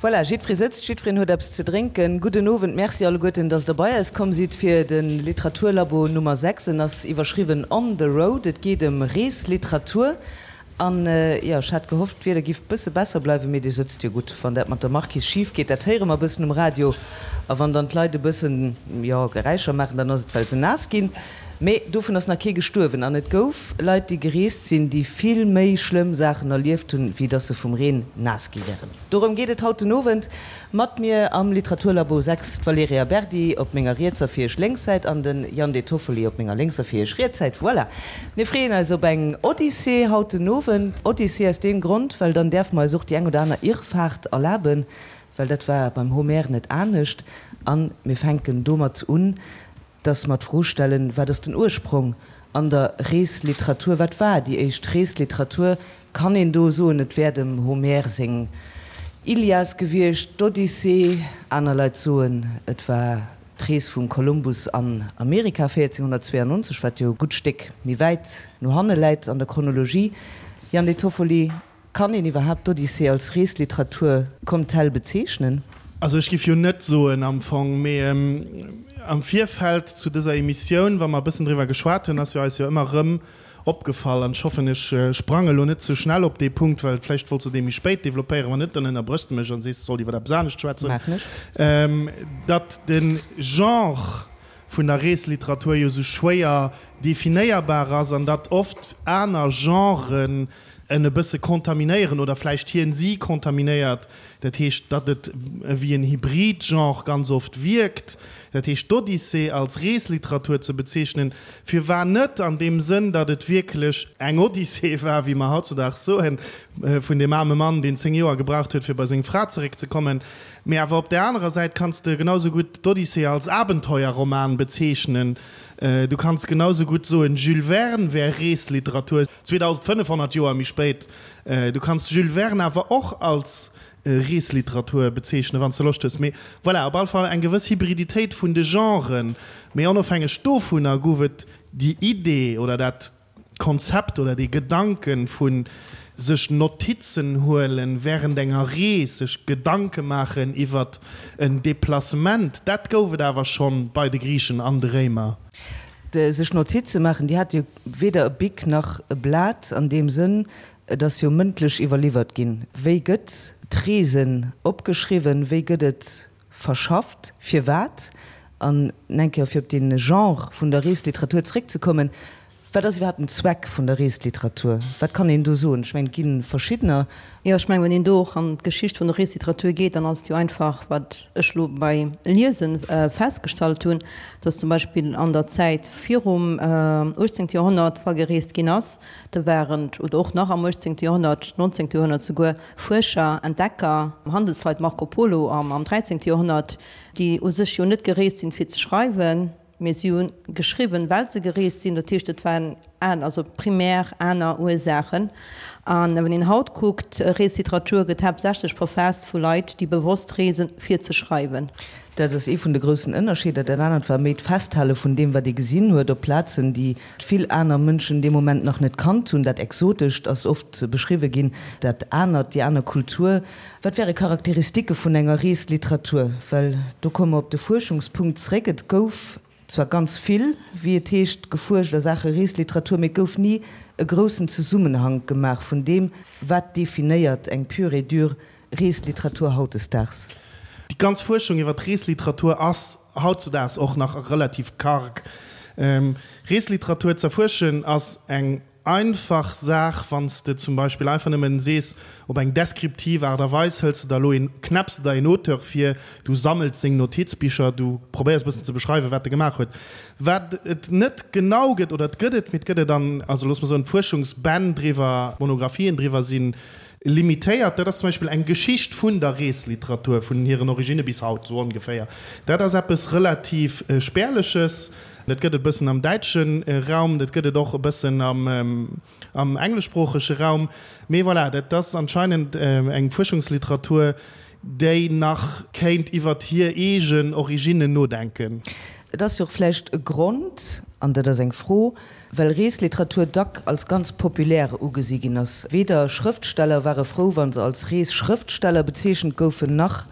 Voilà, jiddweree sëtzt, jiddwereen huet eppes ze drénken. Gudden Owend, Merci alleguerten, dass Der bei eis komm sidd fir de Literaturlabo Nummer 6. En ass iwwerschriwwen On the Road. Et geet ëm Reesliteratur. An, jo, ech hat gehofft, d'Wieder giff bësse besser bleiwen, mee Dir sëtzt jo gutt. Wann dat mat der Marquise schif geet, dat héiere mer e bëssen um Radio. A wann dann d'Leit e bëssen, jo, Geräischer maachen, dann ass et, well se naass ginn. Mee dovun ass nach kee gestuerwen. An et gouf Leit, déi gereest sinn, déi vill méi schlëmm Saachen erlieft hunn, wéi dass se vum Reen naass gi wären. Dorëm geet et haut den Owend. Mat mir am Literaturlabo 6 d'Valerija Berdi op menger rietser fir iech lénks Säit an den Jan De Toffoli op menger lénkser fir iech riets Säit. Voilà! Mir freeën eis op eng Odyssee haut den Owend. Odyssee aus deem Grond, well dann däerfe mer eis och déi eng oder aner Irrfahrt erlaben, well dat war beim Homer net anescht. An mir fänken domat un, dass mer d'Fro stellen, Wat ass den Ursprong an der Reesliteratur? Wat war déi éischt Reesliteratur? Kann een do soen, et wär dem Homer seng Ilias gewiescht, d'Odyssee? Aner Leit soen, et war d'Rees vum Kolumbus an Amerika 1492, wat jo e gutt Stéck méi wäit no hanne läit an der Chronologie. Jan De Toffoli, Kann een iwwerhaapt d'Odyssee als Reesliteratur comme telle bezeechnen? Also ech giff jo net soen am Fong, mee am Virfeld zu dëser Emissioun, wa mer e bëssen driwwer geschwat hunn, ass jo eis jo ëmmer erëm opgefall, an ech hoffen ech sprange lo net ze schnell op dee Punkt, well vläicht wollts de dee méi spéit developpéieren, wann net, dann ënnerbrëchs de mech an sees, ech sollt iwwer eppes anescht schwätzen, Maachen ech. datt de Genre vun der Reesliteratur jo esou schwéier definéierbar ass an datt oft aner Genren en e bësse kontaminéieren oder vläicht hien si kontaminéiert, dat heescht, datt et ewéi en Hybrid-Genre ganz oft wierkt, dat heescht d'Odyssee als Reesliteratur ze bezeechnen, firwar net an deem Sënn, datt et wierklech eng Odyssee war, wéi mer hautzudaags soen, vun deem aarme Mann, deen 10 Joer gebraucht huet, fir bei seng Fra zeréckzekommen. Mee awer op där anerer Säit kanns de genau sou gutt d'Odyssee als Abenteuerroman bezeechnen. Du kanns genau sou gutt soen, Jules Verne wär Reesliteratur. 2500 Joer méi spéit. Du kanns Jules Verne awer och als Reesliteratur bezeechnen, wann s de Loscht hues. Mee voilà, op alle Fall eng gewëss Hybriditéit vun de Genren. Mee onofhängeg dovunner gouf et déi Idee oder dat Konzept oder dee Gedanken vu sech Notizen huelen während enger Rees, sech Gedanke maachen iwwert en Deplacement, dat gouf et awer schonn bei de Griichen an de Réimer. Sech Notize maachen, déi hate jo weder e Bic nach e Blat an deem Sënn, et ass jo mëndlech iwwerliwwert ginn. Wéi gëtt d'Reesen opgeschriwwen, wéi gëtt et verschafft, firwat? An eng Kéier fir op dee Genre vun der Reesliteratur zréckzekommen, Wat ass iwwerhaapt den Zweck vun der Reesliteratur? Wat kann een do soen? Ech mengen, et gi verschiddener. Jo, ech mengen, wann een do och an d'Geschicht vun der Reesliteratur geet, dann ass et jo einfach, wat ech elo bei Liese festgestallt hunn, dass zum Beispill an der Zäit virum 18. Joerhonnert, wa gereest ginn ass, do waren, oder och nach am 18. Joerhonnert, 19. Joerhonnert souguer, Fuerscher, Entdecker, Handelsleit, Marco Polo am 13. Joerhonnert, déi u sech jo net gereest sinn, fir ze schreiwen, Mee si hu geschriwwen, well se gereest sinn. Dat heescht, et waren aner, also primär aner Ursaachen. A wann een haut kuckt, Reesliteratur gëtt haaptsächlech verfaasst vu Leit, déi bewosst reesen, fir ze schreiwen. Dat ass ee vun de groussen Ënnerscheeder. Dat anert war méi d'Festhale vun deem, wat ee gesinn huet op Plazen, déi vill aner Mënschen dee Moment nach net kannt hunn. Dat Exotescht ass oft beschriwwe ginn, dat Anert, déi aner Kultur. Wat wäre Charakteristike vun enger Reesliteratur? Well do komme mer op de Fuerschungspunkt zréck. Et gouf zwar ganz vill, wéi et heescht, gefuerscht a Saache Reesliteratur, mee et gouf ni e groussen Zesummenhank gemaach vun deem, wat definéiert eng pure et dure Reesliteratur hautdesdaags. Déi ganz Fuerschung iwwer d'Reesliteratur ass hautzudaags och nach relativ karg. Reesliteratur z'erfuerschen ass eng Einfach Saach, wann s de zum Beispill einfach nëmmen sees, op eng deskriptiv Aart a Weis hëls de der elo een, knäpps de der een Auteur vir, du sammels seng Notizbicher, du probéiers e bëssen ze beschreiwen, wat e gemaach huet. Wat et net genau gëtt, oder et gëtt et, mee et gëtt et an, also looss mer soen, d'Fuerschungsbänn driwwer, d'Monographien driwwer si limitéiert. Dat ass zum Beispill eng Geschicht vun der Reesliteratur, vun hiren Originne bis haut, sou ongeféier. Dat ass eppes relativ Spärleches. Dat gëtt et e bëssen am däitsche Raum, dat gëtt et och e bëssen am engleschsproochege Raum. Mee voilà, dat ass anscheinend eng Fuerschungsliteratur, déi nach kéint iwwert hir eegen Originnen nodenken. Et ass jo och vläicht e Grond. An dat ass eng Fro, well Reesliteratur dack als ganz populär ugesi ginn ass. Weder Schrëftsteller ware frou, wa se als Reesschrëftsteller bezeechent goufen, nach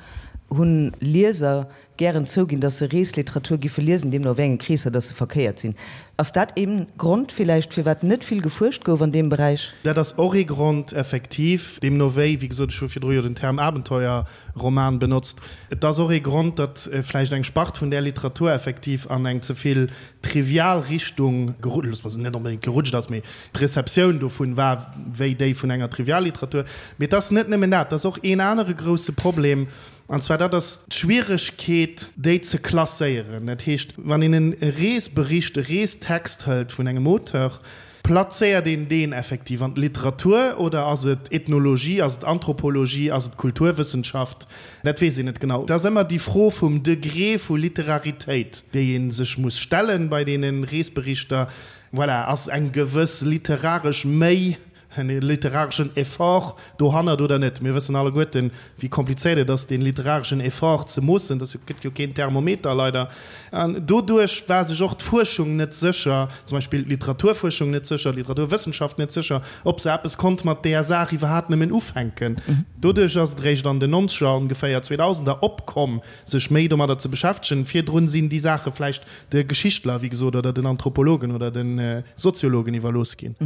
hunn Lieser gären zouginn, dass se Reesliteratur giffe liesen, deemno a wéi enge Kreesser dass se verkéiert sinn. Ass dat ee Grond villäicht, firwat net vill gefuerscht gouf an deem Beräich? Dat ass och ee Grond, effektiv. Deemno wéi, wéi gesot, ech hu virdru jo den Term Abenteuerroman benotzt. Et ass och ee Grond, datt vläicht eng Spart vun där Literatur effektiv an eng ze vill trivial Richtung gerutscht, loosse mer se net onbedéngt gerutscht ass, mee d'Receptioun dovun war wéi déi vun enger Trivialliteratur. Mee et ass net nëmmen dat, et ass och een anere grousse Problem, An zwar dat ass d'Schwieregkeet, déi ze klasséieren. Dat heescht, wann een e Reesbericht, e Reestext hëlt vun engem Auteur, plazéiert een deen effektiv an d'Literatur oder ass et Ethnologie, ass et Anthropologie, ass et Kulturwëssenschaft? Dat weess een net genau. Et ass ëmmer déi Fro vum Degré vu Literaritéit, déi ee sech muss stellen bei deene Reesberichter. Voilà, ass eng gewëss literaresch Méi en literareschen Effort dohannert oder net. Mir wëssen alleguerten, wéi komplizéiert et ass, dee literareschen Effort ze moossen. Dat gëtt jo keen Thermometer, leider. An doduerch war sech och d'Fuerschung net sécher, zum Beispill d'Literaturfuerschung net sécher, d'Literaturwëssenschaft net sécher, ob se eppes konnt mat deeër Saach iwwerhaapt nëmmen ufänken. Doduerch ass et eréischt an den Nonzeger, ongeféier Zweedausender, opkomm, sech méi domadder ze beschäftegen. Virdrun sinn déi Saache vläicht de Geschichtler, wéi gesot, oder den Anthropologen oder de Soziologen iwwerlooss ginn.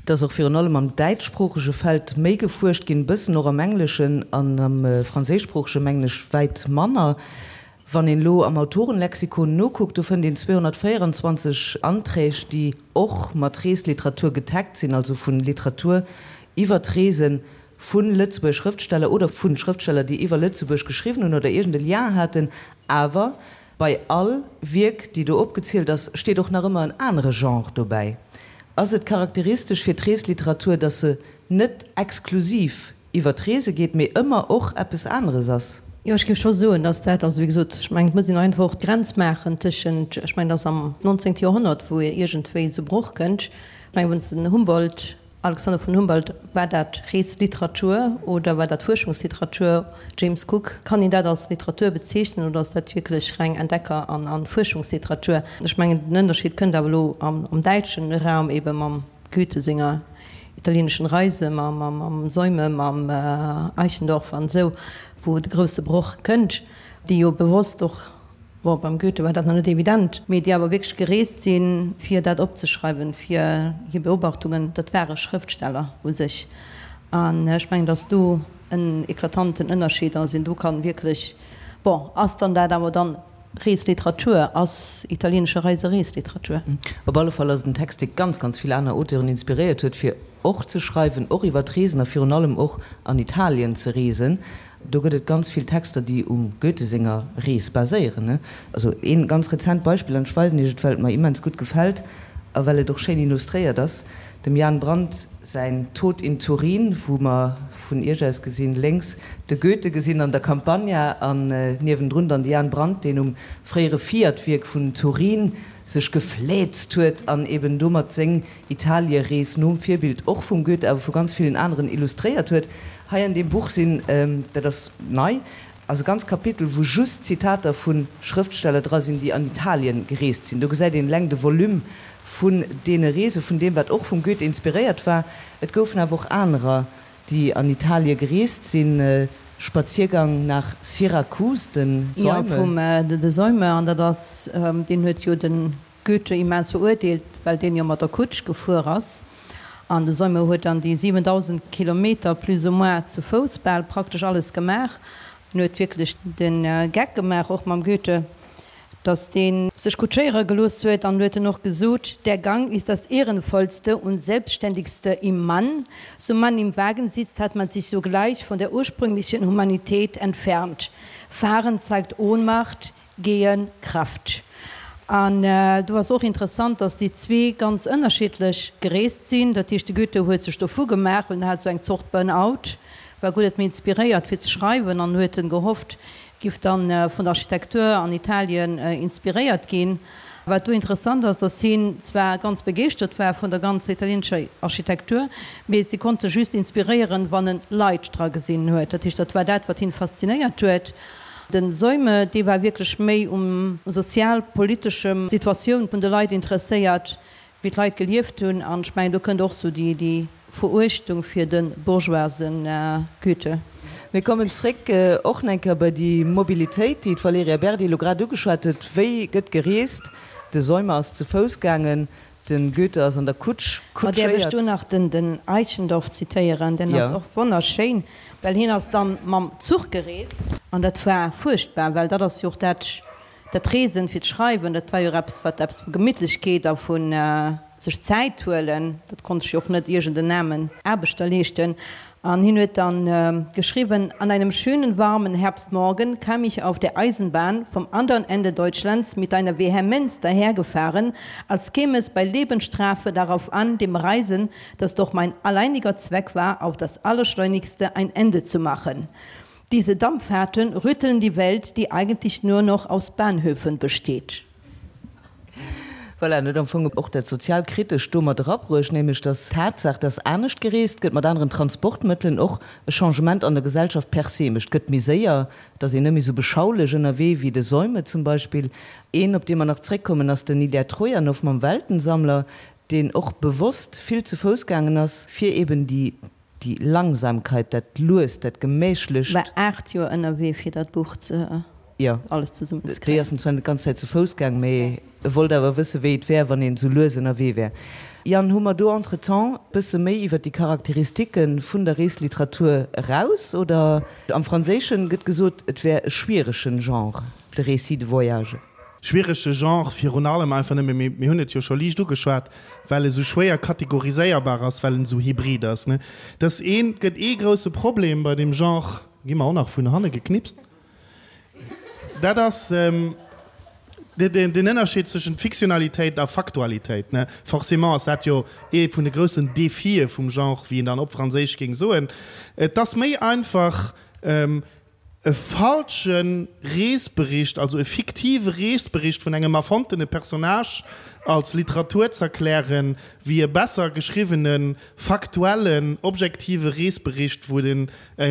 Et ass och virun allem am däitschsproochege Feld méi gefuerscht ginn, e bëssen och am Engleschen an am Franséischsproochege mengen ech wäit manner. Wann een elo am Autorenlexikon nokuckt, do fënnt een 224 Anträg, déi och mat Reesliteratur getaggt sinn, also vu Literatur iwwer d'Reesen vu Lëtzebuerger Schrëftsteller oder vu Schrëftsteller, déi iwwer Lëtzebuerg geschriwwen hunn oder iergend e Lien haten, awer Bei all Wierk, déi do opgezielt ass, steet och nach ëmmer en anere Genre dobäi. Ass et charakteristesch fir d'Reesliteratur, datt se net exklusiv iwwer d'Reese geet, mee ëmmer och eppes aneres ass? Jo, ech géif scho soen, datt dat, also wéi gesot, ech mengen, et muss een einfach och d'Grenz maachen tëschent, ech mengen, et ass am 19. Joerhonnert, wou iergendwéi esou Broch kënnt. Ech mengen, wann s de den Humboldt Alexander von Humboldt, War dat Reesliteratur oder war dat Fuerschungsliteratur? James Cook, Kann een dat als Literatur bezeechnen oder ass dat wierklech reng Entdecker an Fuerschungsliteratur? Ech mengen, den Ënnerscheed kënnt awer elo am däitschen Raum ebe mam Goethe senger italienischen Reise, mam Seume, mam Eichendorff an esou, wou de grousse Broch kënnt, déi jo bewosst och, Bon, beim Goethe war dat nach net evident, mee déi awer wierklech gereest sinn, fir dat opzeschreiwen, fir hir Beobachtungen, dat ware Schrëftsteller u sech. An ech mengen, datt do en eklatanten Ënnerscheed ass, een do kann wierklech, bon, ass dann dat awer dann Reesliteratur, ass Italienische Reise Reesliteratur? Op alle Fall ass et en Text, dee ganz, ganz vill aner Auteuren inspiréiert huet, fir och ze schreiwen, och iwwer d'Reesen a virun allem och an Italien ze reesen. Do gëtt et ganz vill Texter, déi um Goethe senger Rees baséieren. Also een ganz rezent Beispill, an ech weisen Iech et, well et mer immens gutt gefält a well et och schéin illustréiert ass, dem Jan Brandt säin Tod in Turin, wou mer vun Iech aus gesinn lénks de Goethe gesinn an der Campagna an niewendrun dann de Jan Brandt, deen um fréiere Fiat-Wierk vun Turin sech gefläzt huet an eben domat seng Italierees nom Virbild och vum Goethe, awer vu ganz villen aneren illustréiert huet. Hei an deem Buch sinn, dat ass nei, ass e ganz Kapitel, wou just Zitater vu Schrëftsteller dra sinn, déi an Italien gereest sinn. Do gesäit een eleng de Volume vun deene Reese, vun deem, wat och vum Goethe inspiréiert war. Et goufen awer och anerer, déi an Italie gereest sinn. Spaziergang nach Syrakus, den Seume. Jo, vum de Seume. An dat ass, deen huet jo de Goethe immens verurteelt, well deen jo mat der Kutsch gefuer ass, an de Seume huet dann déi 7.000 Kilometer plus ou moins zu Fouss bal praktesch alles gemaach. En huet wierklech de Geck gemaach, och mam Goethe, datt dee sech kutschéiere gelooss huet, an huet en och gesot, Der Gang ist das Ehrenvollste und Selbstständigste im Mann, so man im Wagen sitzt, hat man sich sogleich von der ursprünglichen Humanität entfernt. Fahren zeigt Ohnmacht, Gehen, Krafft. An do ass och interessant, dass déi zwee ganz ënnerschiddlech gereest sinn. Dat heescht, de Goethe huet sech dovu gemaach, well en hat esou eng Zort Burn-out, war guer net méi inspiréiert fir ze schreiwen an huet en gehofft, giff dann vun der Architektur an Italien inspiréiert ginn. Wat do interessant ass, dass hien zwar ganz begeeschtert war vun der ganzer italienescher Architektur, mee si konnt e just inspiréieren, wann en Leit dra gesinn huet. Dat heescht, dat war dat, wat hien faszinéiert huet. Den Seume, dee war wierklech méi um sozial-politeschem Situatioun vun de Leit interesséiert, wéi d'Leit gelieft hunn. An ech mengen, do kënnt och sou déi, déi Veruechtung fir de bourgeoise Goethe. Mir kommen zréck och nach eng Kéier bei déi Mobilitéit, déi d'Valerija Berdi elo grad ugeschwat huet. Wéi gëtt gereest? De Seume ass ze Fouss gaangen, de Goethe ass an der Kutsch Ma däerf ech do kutschéiert. nach den, den Eichendorff zitéieren? Deen ass och wonnerschéin, well hien ass dann mam Zuch gereest. An dat war fuerchtbar, well dat ass jo och dat, Dat Reesen fir d'Schreiwen, dat war jo och eppes, wat eppes vu Gemittlechkeet a vu sech Zäit huelen, dat konnt sech jo och net iergend en aarmen Aarbechter leeschten. An hien huet dann geschriwwen, An einem schönen warmen Herbstmorgen kam ich auf der Eisenbahn vom andern Ende Deutschlands mit einer Vehemenz dahergefahren, als käme es bei Lebensstrafe darauf an, dem Reisen, das doch mein alleiniger Zweck war, auf das allerschleunigste ein Ende zu machen. Diese Dampffahrten rütteln die Welt, die eigentlich nur noch aus Bahnhöfen besteht. Voilà, en huet am Fong och dat Sozialkritescht do mat erabruecht, nämlech dass d'Tatsaach, dass anescht gereest gëtt, mat aneren Transportmëttelen, och e Changement an der Gesellschaft per se mécht. Et gëtt méi séier, et ass een net méi esou beschaulech ënnerwee wéi de Seume zum Beispill. Een, op dee mer nach zréckkommen, ass den Ilja Trojanow mam Weltensammler, deen och bewosst vill ze Fouss gaangen ass, fir eben déi Déi Langsamkeit, dat Luest, dat Gemächlecht. War 8 Joer ënnerwee fir dat Buch ze Jo, alles zesummen ze kréien. Déi ass en zwar net d'ganz Zäit zu Fouss gaang, mee e wollt awer wësse wéi et wär, wann een esou lues ënnerwee wär. Yann, hu mer do entretemps bësse méi iwwer déi Charakteristike vun der Reesliteratur eraus, oder? Am Franséischen gëtt gesot, et wär e schwieregen Genre, de Récit de voyage. Schwierege Genre virun allem einfach nëmme, mee mir hunn et jo scho liicht ugeschwat, well e sou schwéier kategoriséierbar ass, well en esou hybrid ass, ne? Dass een, et gëtt ee grousse Problem bei deem Genre, gi mer och nach vun hanne geknipst, dat ass den Ënnerscheed zwëschent Fiktionalitéit a Faktualitéit, ne? Forcément ass dat jo ee vun de groussen Défië vum Genre, wéi een dann op Franséisch géing soen. Et ass méi einfach, E falsche Reesbericht, also e fiktive Reesbericht vun engem erfonntene Personnage als Literatur z'erklären, wéi e besser geschriwwenen, faktuellen, objektive Reesbericht, wou den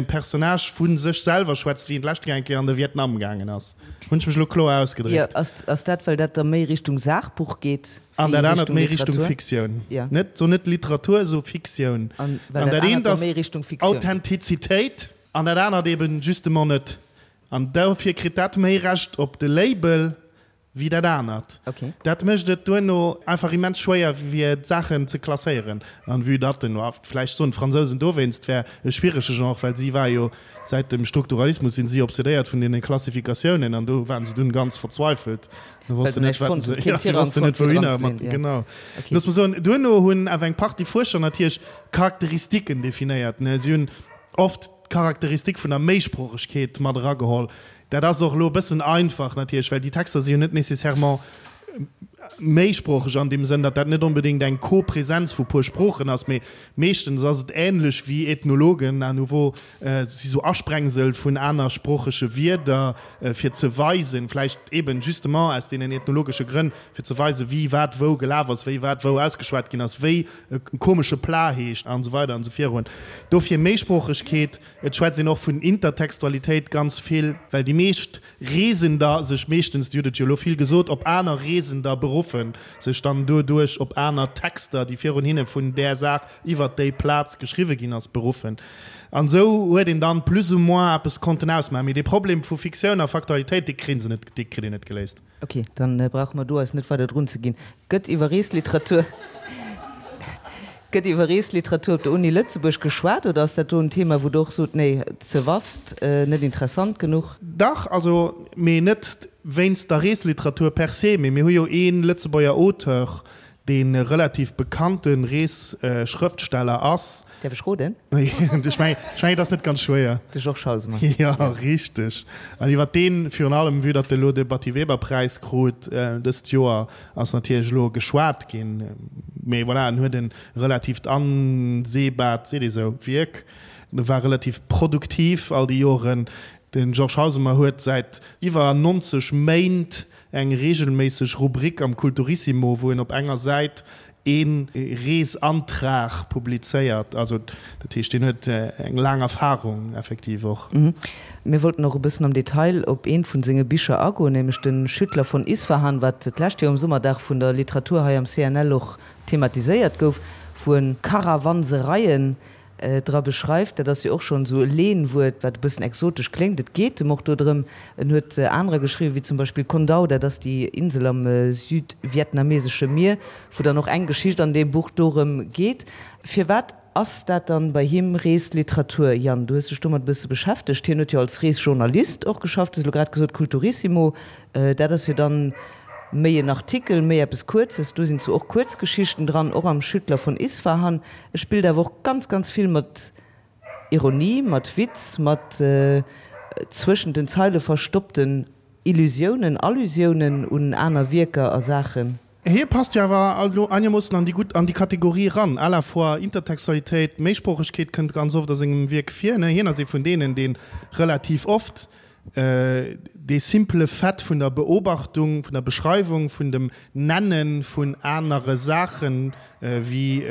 Personnage vu sech selwer schwätzt, wéi en d'lescht Kéier eng Kéier an de Vietnam gaangen ass. Hunn ech mech elo kloer ausgedréckt? Jo, ass dat, well dat da méi Richtung Saachbuch geet An dat anert méi Richtung Fiktioun. Net, so net Literatur, so Fiktioun. An dat eent ass Authentizitéit. An dat anert eben justement net. An dofir kritt dat méi Recht op de Label wéi dat anert. Dat mécht et duerno einfach immens schwéier fir d'Saachen ze klasséieren. An vue datt den, vläicht soen d'Fransousen dowéinst, wär e schwierege Genre, well si war jo säit dem Strukturalismus sinn si obsedéiert vun deene Klassifikatiounen an do waren se dunn ganz verzweifelt. Se wossten net, wat se, ja, si wossten net wouhinner mat, genau. Looss mer soen, duerno hunn awer eng Partie Fuerscher natierlech Charakteristiken definéiert, ne. Si hunn oft d'Charakteristik vun der Méisproochegkeet mat erageholl. Dat ass och elo e bëssen einfach natierlech, well déi Texter si jo net nécessairement méisproocheg an deem Sënn, datt dat net onbedéngt eng Kopresenz vu puer Sproochen ass, mee meeschtens ass et änlech wéi Ethnologen à nouveau, et si sou Asprengsel vun anersproochege Wierder, fir ze weisen, vläicht eben justement aus deenen ethnologesche Grënn, fir ze weisen, wie wat wou gelaf ass, wéi wat wou ausgeschwat ginn ass, wéi e komesche Plat heescht an esou weider an esou virun. Dofir Méisproochegkeet. Et schwätzt een och vun Intertextualitéit ganz vill, well déi meescht Reesender sech meeschtens, Dir hutt et jo elo vill gesot, op aner Reesender beruffen, sech dann doduerch op aner Texter, déi virun hinne vun där Saach iwwert déi Plaz geschriwwe ginn ass, beruffen. An esou huet een dann plus ou moins eppes konnten ausmaachen. Mee dee Problem vu Fiktioun a Faktualitéit, dee kritt een net geléist. Ok, dann brauche mer do eis net weider drun ze ginn. Gëtt iwwer Reesliteratur Gëtt iwwer Reesliteratur op der Uni Lëtzebuerg geschwat oder ass dat do en Thema, wou Der och sot, nee, ze vast, net interessant genuch? Dach, also, mee net wéinst der Reesliteratur per se, mee mir hu jo ee Lëtzebuerger Auteur, dee relativ bekannte Reesschrëftsteller ass. Däerf ech roden? Ech mengen, et ass net ganz schwéier. De Georges Hausemer. Jo, richteg. An iwwer deen, virun allem vue datt e lo de Batty-Weber-Präis krut dëst Joer, ass natierlech elo geschwat ginn. Mee voilà, en huet e relativt anseebaart, seet ee sou, Wierk. E war relativ produktiv all déi Joren. De Georges Hausemer huet säit iwwer 90 Méint eng reegelméisseg Rubrik am Kulturissimo, wou en op enger Säit. Ee Reesantrag publizéiert. Also dat heescht, deen huet eng laang Erfahrung effektiv och. Mir wollten och e bëssen am Detail op eent vun senge Bicher agoen, nämlech de Schüttler von Isfahan, wat d'lescht Joer um Summerdag vun der Literatur hei am CNL och thematiséiert gouf, wou en Karawansereien dra beschreift. Dat ass jo och schonn esou e Lehnwuert, wat e bëssen exotesch kléngt. Et geet em och do drëm. En huet anerer geschriwwen, wéi zum Beispill Con Dao, dat ass déi Insel am südvietnamesesche Mier, wou dann och eng Geschicht an deem Buch dorëm geet. Firwat ass dat dann bei him Reesliteratur? Yann, du hues dech domat e bësse beschäftegt. Hien huet jo als Reesjournalist och geschafft, du hues elo grad gesot Kulturissimo, dat ass jo dann méi en Artikel, méi eppes Kuerzes. Do sinn zwar och Kuerzgeschichten dran, och am Schüttler von Isfahan. E spillt awer och ganz, ganz vill mat Ironie, mat Witz, mat zwëschent den Zeile verstoppten Illusiounen, Allusiounen un aner Wierker a Saachen. Hie passt jo awer elo einermoossen an déi gutt, an déi Kategorie eran, à la fois Intertextualitéit, Méisproochegkeet kënnt ganz oft a sengem Wierk vir, ne? Hien ass ee vun deenen, dee relativ oft dee simple Fait vun der Beobachtung, vun der Beschreiwung, vun dem Nenne vun anere Saachen, wéi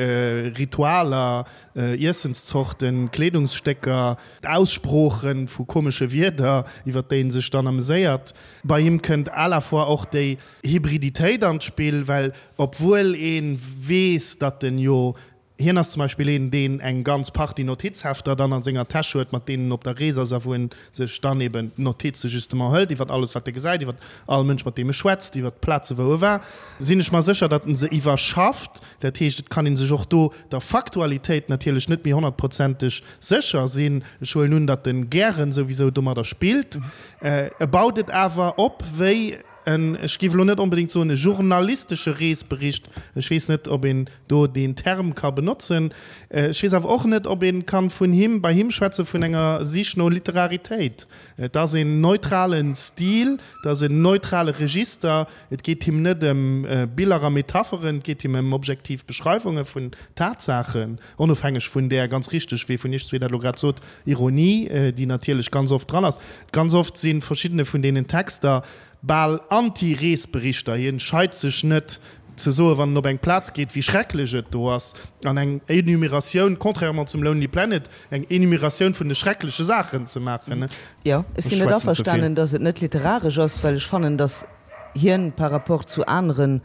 Ritualer, Iessenszorten, Kleedungsstécker, Aussprooche vu komesche Wierder, iwwer déi en sech dann ameséiert. Bei him kënnt à la fois och déi Hybriditéit an d'Spill, well obwuel ee weess, datt en jo Hien ass zum Beispill een, deen eng ganz Partie Notizhefter dann a senger Täsch huet, mat deenen en op der Rees ass a wou en sech dann eben d'Notize justement hëlt iwwer alles, wat e gesäit, iwwer all Mënsch, mat deem e schwätzt, iwwer d'Plaze wou e war. Sinn ech mer sécher, datt en se iwwerschafft. Dat heescht, et kann ee sech och do der Faktualitéit natierlech net méi honnertprozenteg sécher sinn. Ech huelen un, datt en gären souwisou domadder spillt. E baut et awer op wéi en, ech géif elo net onbedéngt soen e journalistesche Reesbericht, ech weess net, ob een do deen Term ka benotzen. Ech weess awer och net, ob ee kann vun him, bei him schwätze vun enger Sich no Literaritéit. Et ass een neutrale Stil, et ass en neutrale Register. Et geet him net ëm Biller a Metapheren, et geet him ëm objektiv Beschreiwunge vun Tatsaachen, onofhängeg vun där, ganz richteg, wéi vun Iech zwee dat elo grad sot, Ironie, déi natierlech ganz oft dran ass. Ganz oft si verschiddene vun deenen Texter bal Anti-Reesberichter. Hien scheit sech net ze soen, wann en op eng Plaz geet, wéi schrecklech et do ass, an eng Enumeratioun, contrairement zum Lonely Planet, eng Enumeratioun vun de schreckleche Saachen ze maachen. Jo, ech sinn net averstanen, datt et net literaresch ass, well ech fannen, datt hien par rapport zu aneren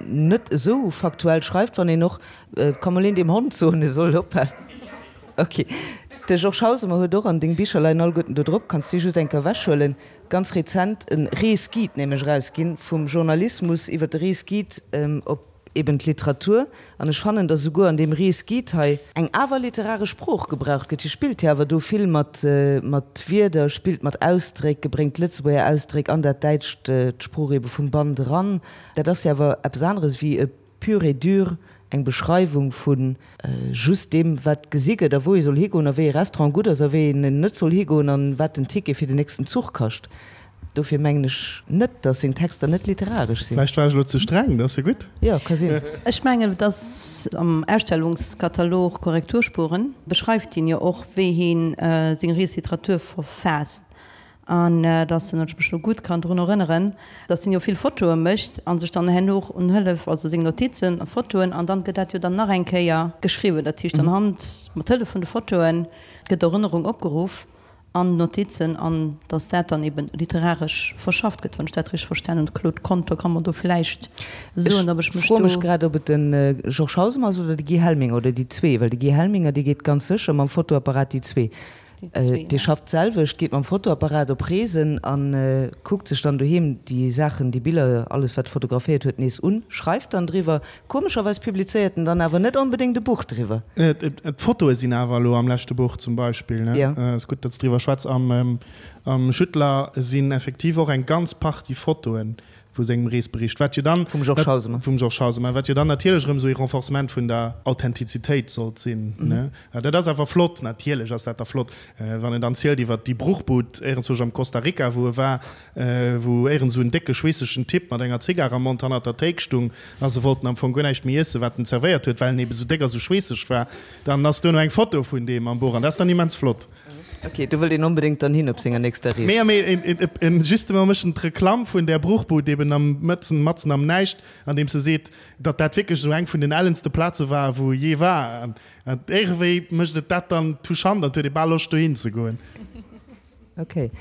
net esou faktuell schreift, wann een och, ka mol een dem Hond soen, e soll ophalen. Ok, de Georges Hausemer huet och, an deng Bicher leien alleguerten do drop, kanns déi just eng Kéier ewechhuelen, ganz rezent e Reesguide nämlech erausginn, vum Journalismus iwwer de Reesguide op eben d'Literatur. An ech fannen, datt esouguer an deem Reesguide hei eng awer literaresch Sprooch gebraucht gëtt. Hie spillt jo awer do vill mat mat Wierder, spillt mat Ausdréck, bréngt d'Lëtzebuerger Ausdréck an dat Däitscht, d'Sprooch ebe vum Band eran. Dat ass jo awer eppes aneres wéi e pur et dur eng Beschreiwung vu just deem, wat gesi gëtt a wou ee soll higoen a wéi ee Restaurant gutt ass a wéi een net soll higoen an wat den Ticket fir den nächsten Zuch kascht. Dofir mengen ech net, datt seng Texter net literaresch sinn. Vläicht war ech elo ze streng, dat ass jo gutt. Jo, ka sinn. Ech mengen, et ass am Ausstellungskatalog Korrekturspuren beschreift hien jo och, wéi hien seng Reesliteratur verfaasst. An dass en, wann ech mech elo gutt kann drun erënneren, dass en jo vill Fotoe mécht a sech dann herno och un Hëllef, also seng Notizen a Fotoen, an dann gëtt dat jo dann nach eng Kéier geschriwwen. Dat heescht, anhand, mat Hëllef vun de Fotoe gëtt d'Erënnerung opgeruff an d'Notizen, an dass dat dann eben literaresch verschafft gëtt, wann ech dat richteg verstanen hunn. De Claude Conter ka mer do vläicht soen, ob ech mech do. Ech froe mech grad, ob et de Georges Hausemer ass oder de Guy Helminger oder déi zwee, well de Guy Helminger, dee geet ganz sécher mam Fotoapparat, déi zwee. Dee schafft d'selwecht, geet mam Fotoapparat op Reesen a kuckt sech dann doheem déi Saachen, déi Biller, alles wat e fotograféiert huet, nees un, schreift dann driwwer. Komescherweis publizéiert en dann awer net onbedéngt e Buch driwwer. D'Fotoe sinn awer elo am leschte Buch zum Beispill, ne? Ass gutt, datt s driwwer schwätz. Am Schüttler sinn effektiv och eng ganz Partie Fotoen vu sengem Reesbericht, wat jo dann, Vum Georges Hausemer. Vum Georges Hausemer, wat jo dann natierlech erëm esou ee Renforcement vun der Authentizitéit sollt sinn, ne? Dat ass awer flott, natierlech ass dat da flott, wann en dann zielt iwwert déi Bruchbud éierenzwousch am Costa Rica, wou e war, wou éierens esou en décke schweessegen Typ mat enger Zigar am Mond hannert der Théik stung a se wollten am Fong guer näischt méi iessen, wat en zerwéiert huet, well en ebe sou déck a sou schweesseg war. Dann ass duerno eng Foto vun deem am Buch an dat ass dann immens flott. Ok, do wëllt een onbedéngt dann hin op senger nächster Rees. Mee, mee en justement mécht en d'Reklamm vun där Bruchbud eben am mëtzen, matzen am Näischt, andeems e seet, datt dat wierklech esou eng vun den ellenste Plaze war, wou e jee war. An iergendwéi mécht et dat dann touchant an et huet ee bal Loscht dohin ze goen. Ok.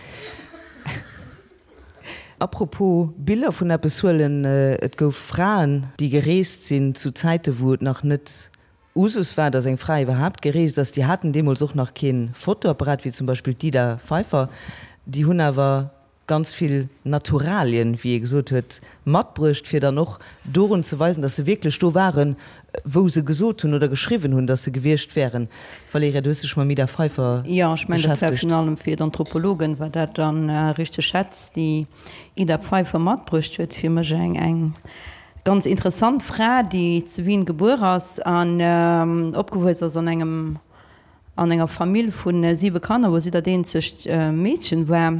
Apropos Biller vun eppes huelen, et gouf Fraen, déi gereest sinn zu Zäite wou et nach net Usus war, datt eng Fra iwwerhaapt gereest ass. Déi haten deemools och nach kee Fotoapparat, wéi zum Beispill d'Ida Pfeiffer. Déi hunn awer ganz vill Naturalien, wéi ee gesot huet, matbruecht, fir dann och dorun ze weisen, datt se wierklech do waren, wou se gesot hunn oder geschriwwen hunn, datt se gewiescht wären. Valerija, du hues dech mam Ida Pfeiffer beschäftegt. Jo, ech mengen, dat war virun allem fir d'Anthropologen war dat dann richteg Schätz, déi Ida Pfeiffer matbruecht huet. Fir mech eng ganz interessant Fra, déi zu Wien gebuer ass an opgewuess ass an engem an enger Famill vu siwe Kanner, wou si dat eenzegt Meedchen war.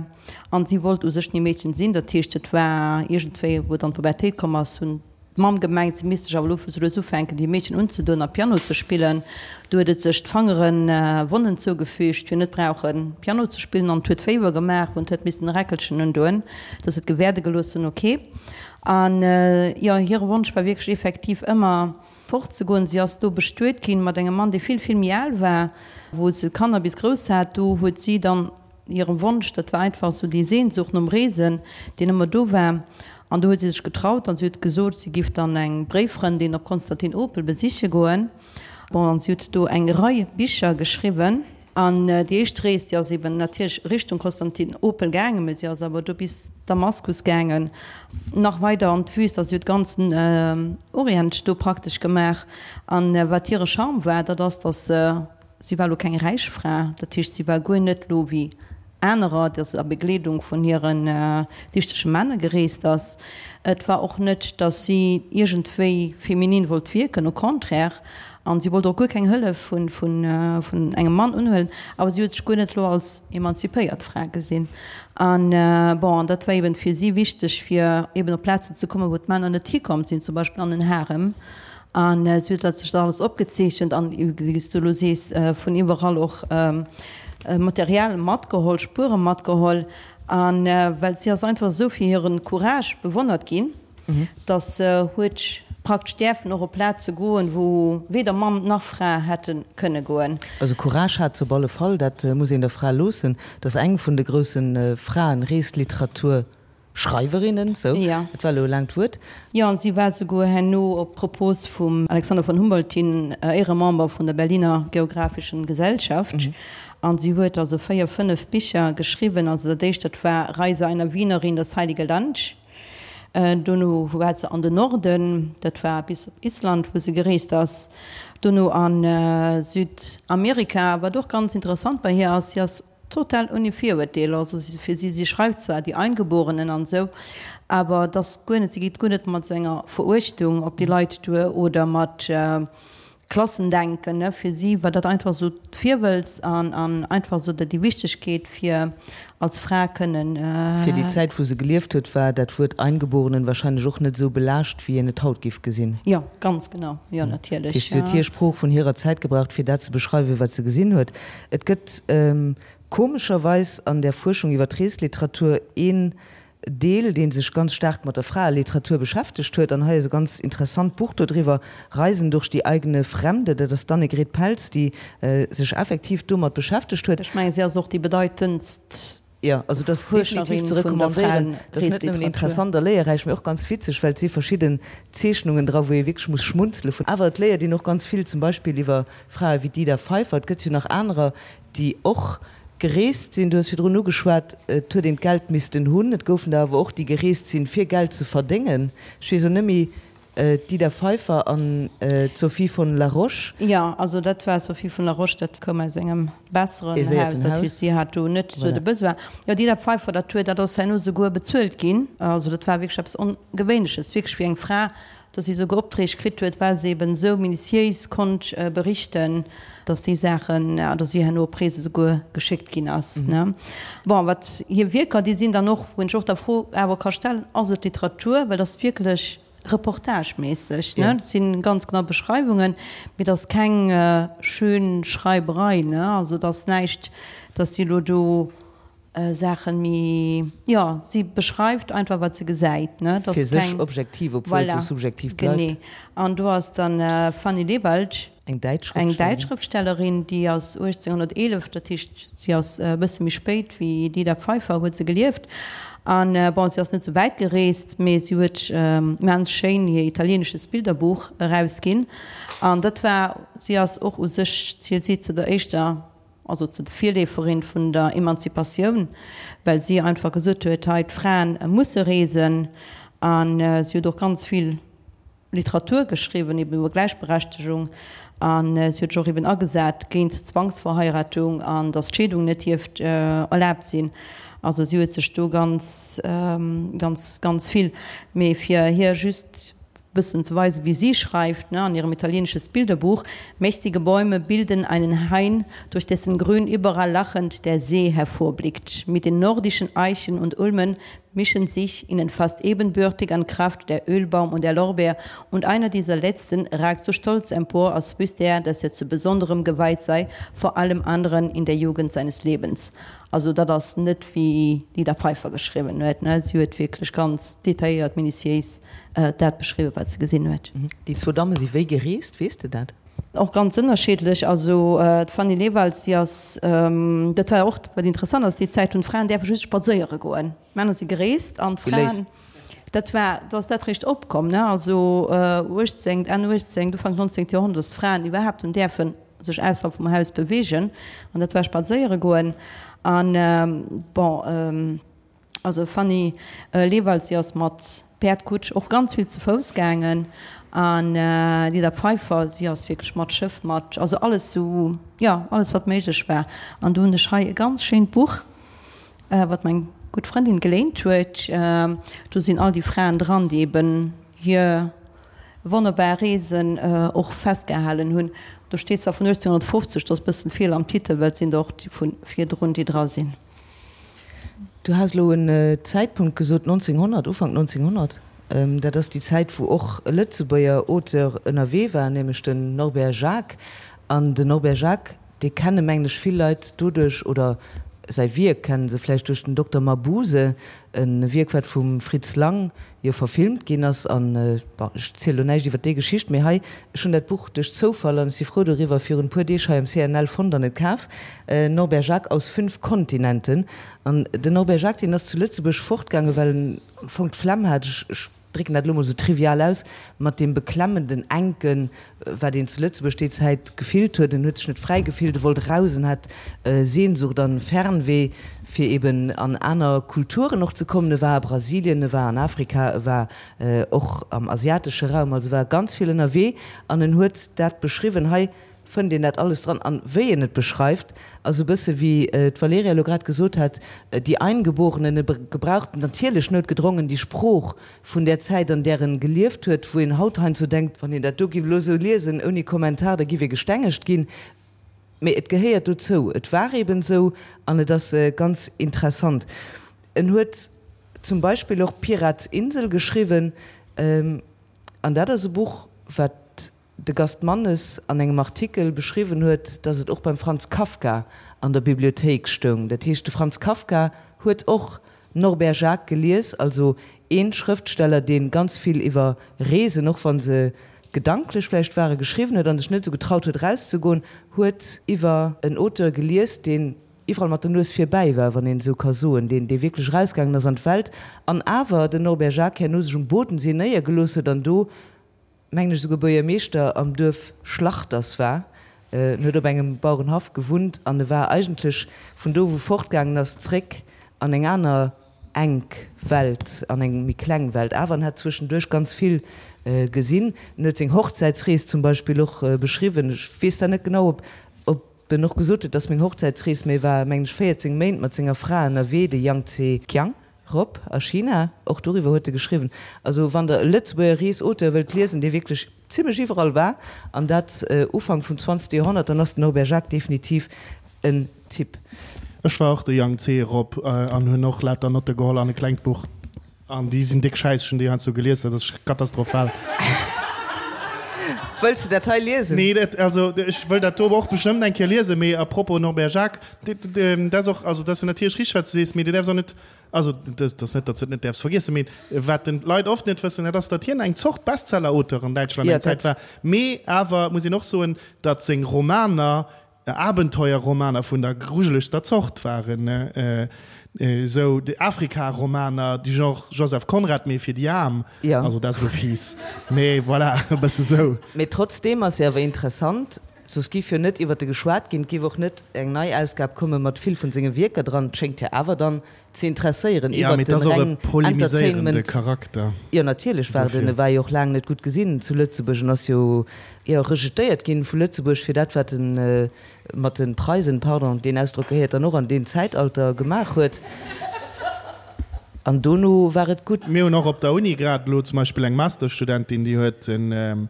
An si wollt u sech ni Meedchen sinn. Dat heescht, et war iergendwéi, wou et an d'Pubertéit komm ass, hunn D'Mamm gemengt, si misst sech awer elo sou lues ufänken, déi Meedchen unzedoen a Piano ze spillen. Du huet et sech d'Fangeren Wonnen zougefügt, fir net brauchen Piano ze spillen, an et huet Féiwer gemaach, wou en huet missten e Räckelchen undoen, dass et gewäerde gelooss hunn. Ok. An jo, hire Wonsch war wierklech effektiv ëmmer fortzegoen. Si ass do bestuet ginn mat engem Mann, dee vill, vill méi al war, wou se d'Kanner bis grouss hat. Do huet si dann Hire Wonsch, dat war einfach esou déi Sehnsucht nom Reesen, deen ëmmer do war. An do huet si sech getraut an si huet gesot, si giff dann eng Bréiffrëndin op Konstantinopel besiche goen. Bon, an si huet do eng Rei Bicher geschriwwen. An déi éischt Rees, déi ass eben natierlech Richtung Konstantinopel gaangen, mä si ass awer do bis Damaskus gaangen, nach weider an d'Wüst. Also si huet ganzen Orient do praktesch gemaach. An wat hire Charme war, dat ass, datt se Si war lo keng räich Fra, dat heescht si war guer net lo wéi anerer, datt se a Begleedung vun hiren dichtege Männer gereest ass. Et war och net, datt si iergendwéi feminin wollt wierken, au contraire, an si wollt och guer keng Hëllef vun vun engem Mann unhuelen, awer si huet sech guer net lo als emanzipéiert Fra gesinn. An bon, an dat war eben fir si wichteg, fir eben op Plazen ze kommen, wou d'Männer net hikomm sinn, zum Beispill an den Harem. An si huet dat sech da alles opgezeechent an, wéi s du elo sees, vun iwwerall och Material matgeholl, Spuere matgeholl. A well si ass einfach esou fir hire Courage bewonnert ginn, datt se huet praktesch däerfen och op Plaze goen, wou weder Mann nach Fra hätte kënne goen. Also Courage hat se op alle Fall, dat muss een der Fra loossen. Dat ass eng vun de grousse Fraen-Reesliteratur. Schreiwerinnen, sou, et war elo e laangt Wuert. Jo, an si war souguer herno op Propos vum Alexander von Humboldt hin Éieremember vun der Berliner Geographischen Gesellschaft. An si huet also 4, 5 Bicher geschriwwen. Also dat éischt, dat war Reise einer Wienerin, das Heilige Land. Dono war se an den Norden, dat war bis op Island, wou se gereest ass. Dono a Südamerika. Wat och ganz interessant bei hir ass, si ass Total ouni Virurteeler, also fir si, si schreift zwar die Eingeborenen an esou, awer et ass guer net, si geet guer net mat esou enger Veruechtung op déi Leit duer oder mat Klassendenken, ne, fir si war dat einfach esou d'Virwëlz an an einfach esou déi Wichtegkeet fir als Fra kënnen. Fir déi Zäit wou se gelieft huet, war dat Wuert Eingeborenen wahrscheinlech och net esou belaascht wéi een et haut géif gesinn. Jo, ganz genau, jo natierlech. Dat heescht, si huet hir Sprooch vun hirer Zäit gebraucht fir dat ze beschreiwen wat se gesinn huet. Et gëtt komescherweis an der Fuerschung iwwer d'Reesliteratur een Deel, dee sech ganz staark mat der Fraeliteratur beschäftegt huet. An hei ass e ganz interessant Buch dodriwwer, Reisen durch die eigene Fremde. Dat ass d'Annegret Pelz, déi sech effektiv domat beschäftegt huet. Ech mengen, si ass och déi bedeitendst Jo, also et ass definitiv ze recommandéieren. Et ass net nëmmen interessant a léierräich, mee och ganz witzeg, well et si verschidden Zeechnungen dra, wou ee wierklech muss schmunzele vun. Awer et léiert een och ganz vill, zum Beispill iwwer Frae wéi d'Ida Pfeiffer. Et gëtt jo nach anerer, déi och gereest sinn. Du hues virdrun ugeschwat, et huet een d'Geld missten hunn. Et goufen der awer och, déi gereest sinn, fir Geld ze verdéngen. Ech weess elo net méi, D'Ida Pfeiffer an d'Sophie von La Roche. Jo, also dat war Sophie von La Roche, dat koum aus engem besseren Haus, dat heescht si hat do net esou de Besoin. Jo, d'Ida Pfeiffer, dat huet, dat ass herno souguer bezuelt ginn, also dat war wierklech eppes Ongewéinleches, wierklech fir eng Fra, datt si souguer Opträg kritt huet, well se eben esou minutiéis konnt berichten, datt déi Saachen, datt si herno op Reese souguer geschéckt ginn ass, ne. Bon, wat hir Wierker, déi sinn dann och, wou een sech och der Fro awer ka stellen, ass et Literatur, well et ass wierklech. Reportageméisseg, ne? Dat si ganz genau Beschreiwungen, mee et ass keng schön Schreiberei, ne? Also et ass näischt, datt si elo do Saachen méi, jo, si beschreift einfach wat se gesäit, ne? Et ass Fir sech keng, objektiv, obwuel et voilà, sou subjektiv bleift. genee. An do ass dann Fanny Lewald. Eng däitsch Eng däitsch Schrëftstellerin, déi ass 1811, dat heescht si ass e bësse méi spéit wéi d'Ida Pfeiffer huet se gelieft. An bon, si ass net sou wäit gereest, mee si huet immens schéin hir Italienisches Bilderbuch erausginn. An dat war, si ass och u sech, zielt si zu der éischter, also zu de Virleeferin vun der Emanzipatioun, well si einfach gesot huet, hei d'Fraen musse reesen. An si huet och ganz vill Literatur geschriwwen, eben iwwer Gläichberechtegung, a si huet sech och eben agesat géint Zwangsverheiratung an datt d'Scheedung net dierft erlaabt sinn. Also si huet sech do ganz, ganz, ganz vill, mee fir hir just bëssen ze weisen, wéi si schreift, ne, an hirem Italienisches Bilderbuch, Mächtige Bäume bilden einen Hain, durch dessen Grün überall lachend der See hervorblickt. Mit den nordischen Eichen und Ulmen mischen sich ihnen fast ebenbürtig an Kraft der Ölbaum und der Lorbeer, und einer dieser letzten ragt so stolz empor, als wüsste er, dass er zu besonderem geweiht sei vor allem anderen in der Jugend seines Lebens. Also dat ass net wéi d'Ida Pfeiffer geschriwwen huet, ne, si huet wierklech ganz detailléiert, minutiéis dat beschriwwen, wat se gesinn huet. Déi zwou Damme si wéi gereest, weess de dat? Och ganz ënnerschiddlech. Also d'Fanny Lewald, si ass, dat war och wat interessant ass, déi Zäit hunn d'Fraen däerfe just spadséiere goen. D'Männer si gereest an d'Fraen, dat war, do ass dat réischt opkomm, ne, also uechtzéngt, Enn uechtzéngt, Ufank nonzéngt Joerhonnert, datt d'Fraen iwwerhaapt hunn däerfen sech ausserhalb vum Haus beweegen an dat war spadséiere goen. An bon. Also Fanny Lewald, si ass mat Päerd, Kutsch, och ganz vill ze Fouss gaangen an d'Ida Pfeiffer, si ass wierklech mat Schëff, mat, also alles sou, jo, alles wat méiglech war. An do hunn ech hei e ganz schéint Buch, wat meng gutt Frëndin geléint huet. Do sinn all déi Fraen dran, déi eben hir wonnerbar Reesen och festgehalen hunn. Do steet zwar vun 1850, do ass e bëssen Feeler am Titel, well et sinn der och déi vu virdrun, déi dra sinn. Du has elo en Zäitpunkt gesot, 1900, Ufank 1900. Dat ass déi Zäit, wou och e Lëtzebuerger Auteur ënnerwee war, nämlech den Norbert Jacques. An den Norbert Jacques, dee kenne mengen ech vill Leit doduerch, oder säi Wierk kenne se vläicht duerch den Dokter Mabuse, e Wierk, wat vum Fritz Lang jo verfilmt ginn ass. An, bon, ech ziele lo näischt iwwer déi Geschicht, mee hei, ech hunn dat Buch duerch Zoufall, an ech si frou doriwwer, virun e puer Deeg hei am CNL fonnt an et kaf. Norbert Jacques aus fünf Kontinenten. An den Norbert Jacques, deen ass zu Lëtzebuerg fortgaangen, well en am Fong d'Flemm hat, ech, ech drécken dat elo mol esou trivial aus, mat deem beklemmenden, enken, wat een zu Lëtzebuerg déi Zäit gefillt huet. En huet sech net fräi gefillt, e wollt eraus, en hat Sehnsucht an Fernweh, fir eben an aner Kulturen och ze kommen. E war a Brasilien, e war an Afrika, e war och am asiatesche Raum, also war ganz vill ënnerwee an en huet dat beschriwwen. Hei fënnt een dat alles dran. An wéi en et beschreift, ass e bësse wéi d'Valerija elo grad gesot hat, Die Eingeborenen, e gebraucht natierlech noutgedrongen déi Sprooch vun där Zäit, an där en gelieft huet, wou een haut heiansdo denkt, wann een dat do giff elo esou liesen ouni Kommentar, da giff ee gestengegt ginn. Mee et gehéiert dozou, et war eben esou an et ass ganz interessant. En huet zum Beispill och Pirats Insel geschriwwen, an dat ass e Buch, wat de Gast Mannes an engem Artikel beschriwwen huet, datt et och beim Franz Kafka an der Bibliothéik stoung. Dat heescht, de Franz Kafka huet och Norbert Jacques gelies, also ee Schrëftsteller, dee ganz vill iwwer Reesen, och wa se gedanklech vläicht waren, geschriwwen huet a sech net esou getraut huet erauszegoen, huet iwwer en Auteur gelies, deen iwwerall mat der Nues virbäi war, wann een esou ka soen, deen, dee wierklech erausgaangen ass an d'Welt an awer den Norbert Jacques herno sech um Bodensee néiergelooss huet an do mengen ech, esouguer Buergermeeschter am Duerf Schlachters war. En huet op engem Bauerenhaff gewunnt an e war eigentlech vun do, wou fortgaangen ass, zréck an eng aner enk Welt, an eng méi kleng Welt. Awer en hat zwëschenduerch ganz vill gesinn. En huet seng Hochzäitsrees zum Beispill och beschriwwen. Ech weess da net genau, ob ob en och gesot huet, dass meng Hochzäitsrees, mee e war, mengen ech, 14 Méint mat senger Fra ënnerwee, de Yang Tse-Kiang. Rop a China, och doriwwer huet e geschriwwen. Also wann der e Lëtzebuerger Reesauteur wëllt liesen, dee wierklech zimlech iwwerall war, an dat Ufank vum zwanzegste Joerhonnert, dann ass den Norbert Jacques definitiv en Typ. Ech war och de Yang Tse Rop an hunn och lauter Notte geholl an e klengt Buch. An déi sinn déck schäiss, ech hunn déi heiansdo gelies, dat ass katastrophal. Wëlls de dat hei liesen? Nee, dat, also ech wëll dat do och bestëmmt eng Kéier liesen, mee à propos Norbert Jacques, dat ass och, also dat ass jo natierlech richteg, wat s de sees, mee du däerfs och net, also dat ass net, datt s de et net däerfs vergiessen, mee wat den Leit oft net wëssen, dat ass, datt hien eng Zort Bestseller-Auteur an Däitschland eng Zäit war, mee awer muss een och soen, datt seng Romaner Abenteuerromaner vun der grujelegster Zort waren, esou déi Afrika-Romaner, du genre Joseph Conrad, mee fir déi Aarm. Also dat ass elo fies, mee voilà, e bësse sou. Mee trotzdeem ass se awer interessant, soss giff jo net iwwert e geschwat ginn, et giff och net eng nei Ausgab komme mat vill vun senge Wierker dran. Et schéngt jo awer dann ze interesséieren iwwert den reng Entertainment. Charakter. Jo natierlech war den, e war jo och laang net gutt gesinn zu Lëtzebuerg en ass jo jo rejetéiert ginn vu Lëtzebuerg fir dat wat en mat den Preisen, pardon deen Ausdrock gehéiert dann och an deen Zäitalter, gemaach huet an dono war et gutt. Mir hunn och op der Uni grad elo zum Beispill eng Masterstudentin déi huet en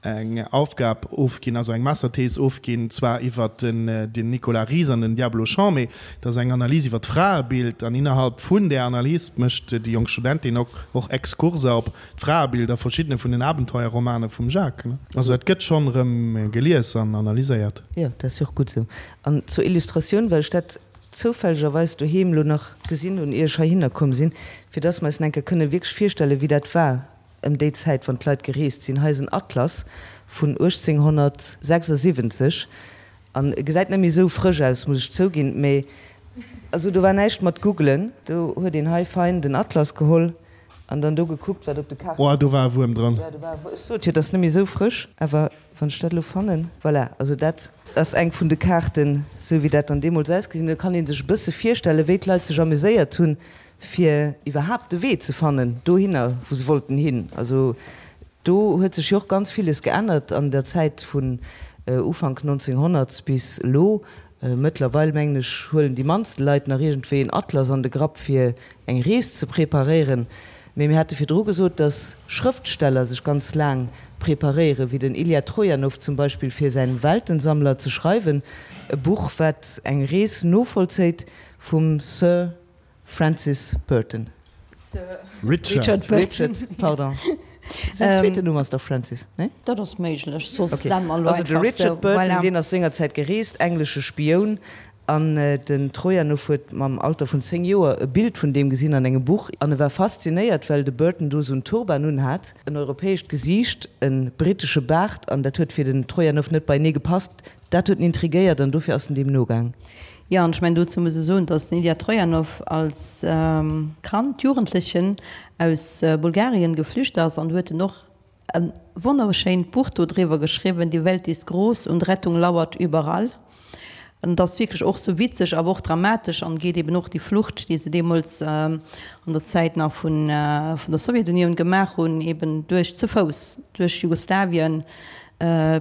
eng Aufgab ofginn, also eng Masterthees ofginn, zwar iwwert den Nicolas Ries an den Diablo Chant, mee dat ass eng Analys iwwer d'Fraebild an innerhalb vun där Analys mécht déi jonk Studentin och Exkurser op d'Fraebild a verschiddene vun den Abenteuerromane vum Jacques. Also dat gëtt schonn erëm gelies an analyséiert. Jo, dat ass jo och gutt esou. An zur Illustratioun, well ech dat zoufällegerweis doheem elo nach gesinn hunn, ier ech heihinner komm sinn, fir dass mer eis en eng Kéier kënne wierklech virstellen, wéi dat war, Ëm déi Zäit, wann d'Leit gereest sinn. Hei ass en Atlas vun 1876 an e gesäit net méi esou frësch aus, muss ech zouginn, mee also do war näischt mat googlen, do huet een hei fein den Atlas geholl an dann do gekuckt, wat op de Kaarten. Oh, do war e Wuerm dran. Jo, do war e Wuerm. Ech sot jo, et ass net méi esou frësch, awer wann ech dat elo fannen, voilà, also dat ass eng vun de Kaarten, esou wéi dat dann deemools ausgesinn huet. Da kann ee sech e bësse virstellen, wéi d'Leit sech amuséiert hunn, fir iwwerhaapt de Wee ze fannen dohinner, wou se wollten hin. Also do huet sech jo och ganz villes geännert an der Zäit vun Ufank 1900 bis elo. Mëttlerweil, mengen ech, huelen déi mannste Leit nach iergendwéi en Atlas an de Grapp, fir eng Rees ze preparéieren. Mee mir hate virdru gesot, datt Schrëftsteller sech ganz laang preparéieren, wéi den Ilja Trojanow zum Beispill, fir säin Weltensammler ze schreiwen, e Buch, wat eng Rees novollzéit vum Sir Francis Burton. Sir Richard. Richard, pardon. Säin zweeten Numm ass dach Francis, nee? Dat ass méiglech, soss nenne mer elo einfach sou. Also de Richard Burton, voilà. Deen ass sengerzäit gereest, englesche Spioun, an den Trojanow huet mam Alter vun 10 Joer e Bild vun deem gesinn an engem Buch, an e war faszinéiert, well de Burton do sou en Turban unhat, en europäescht Gesiicht, e brittesche Baart, an dat huet fir den Trojanow net beienee gepasst. Dat huet en intrigéiert an dofir ass en deem nogaang. Jo, an ech mengen, dozou muss e soen, datt den Ilja Trojanow als Kand, Jugendlechen aus Bulgarien geflücht ass an do huet en och e wonnerschéint Buch do driwwer geschriwwen, Die Welt ist groß und Rettung lauert überall. An et ass wierklech och sou witzeg, awer och dramatesch an geet eben och déi Flucht, déi se deemools an der Zäit nach vun der Sowjetunioun gemaach hunn, eben duerch ze Fouss duerch Jugoslawien,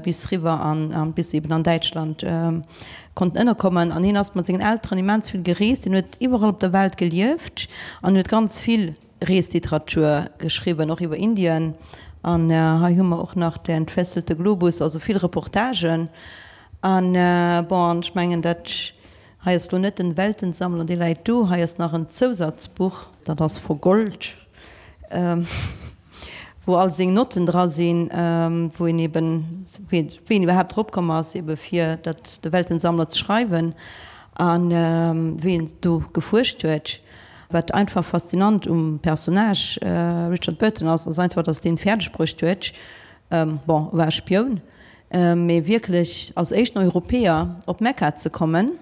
bis riwwer an bis eben an Däitschland konnten ënnerkommen. An hien ass mat sengen Elteren immens vill gereest. Hien huet iwwerall op der Welt gelieft an huet ganz vill Reesliteratur geschriwwen, och iwwer Indien. An hei hu mer och nach Der entfesselte Globus, also vill Reportagen. An bon, an ech mengen dat hei ass lo net den Weltensammler, dee läit do. Hei ass nach en Zousatzbuch, dat ass vergollt. Wou all seng Notten dra sinn, wou een eben, wéi en iwwerhaapt drop komm ass, ebe fir dat de Weltensammler ze schreiwen a wéi en do gefuerscht huet. Wat einfach faszinant um Personnage Richard Burton ass, ass einfach, datt deen fäerdeg bruecht huet, bon, e war e Spioun, mee wierklech als éischten Europäer op Mekka ze kommen,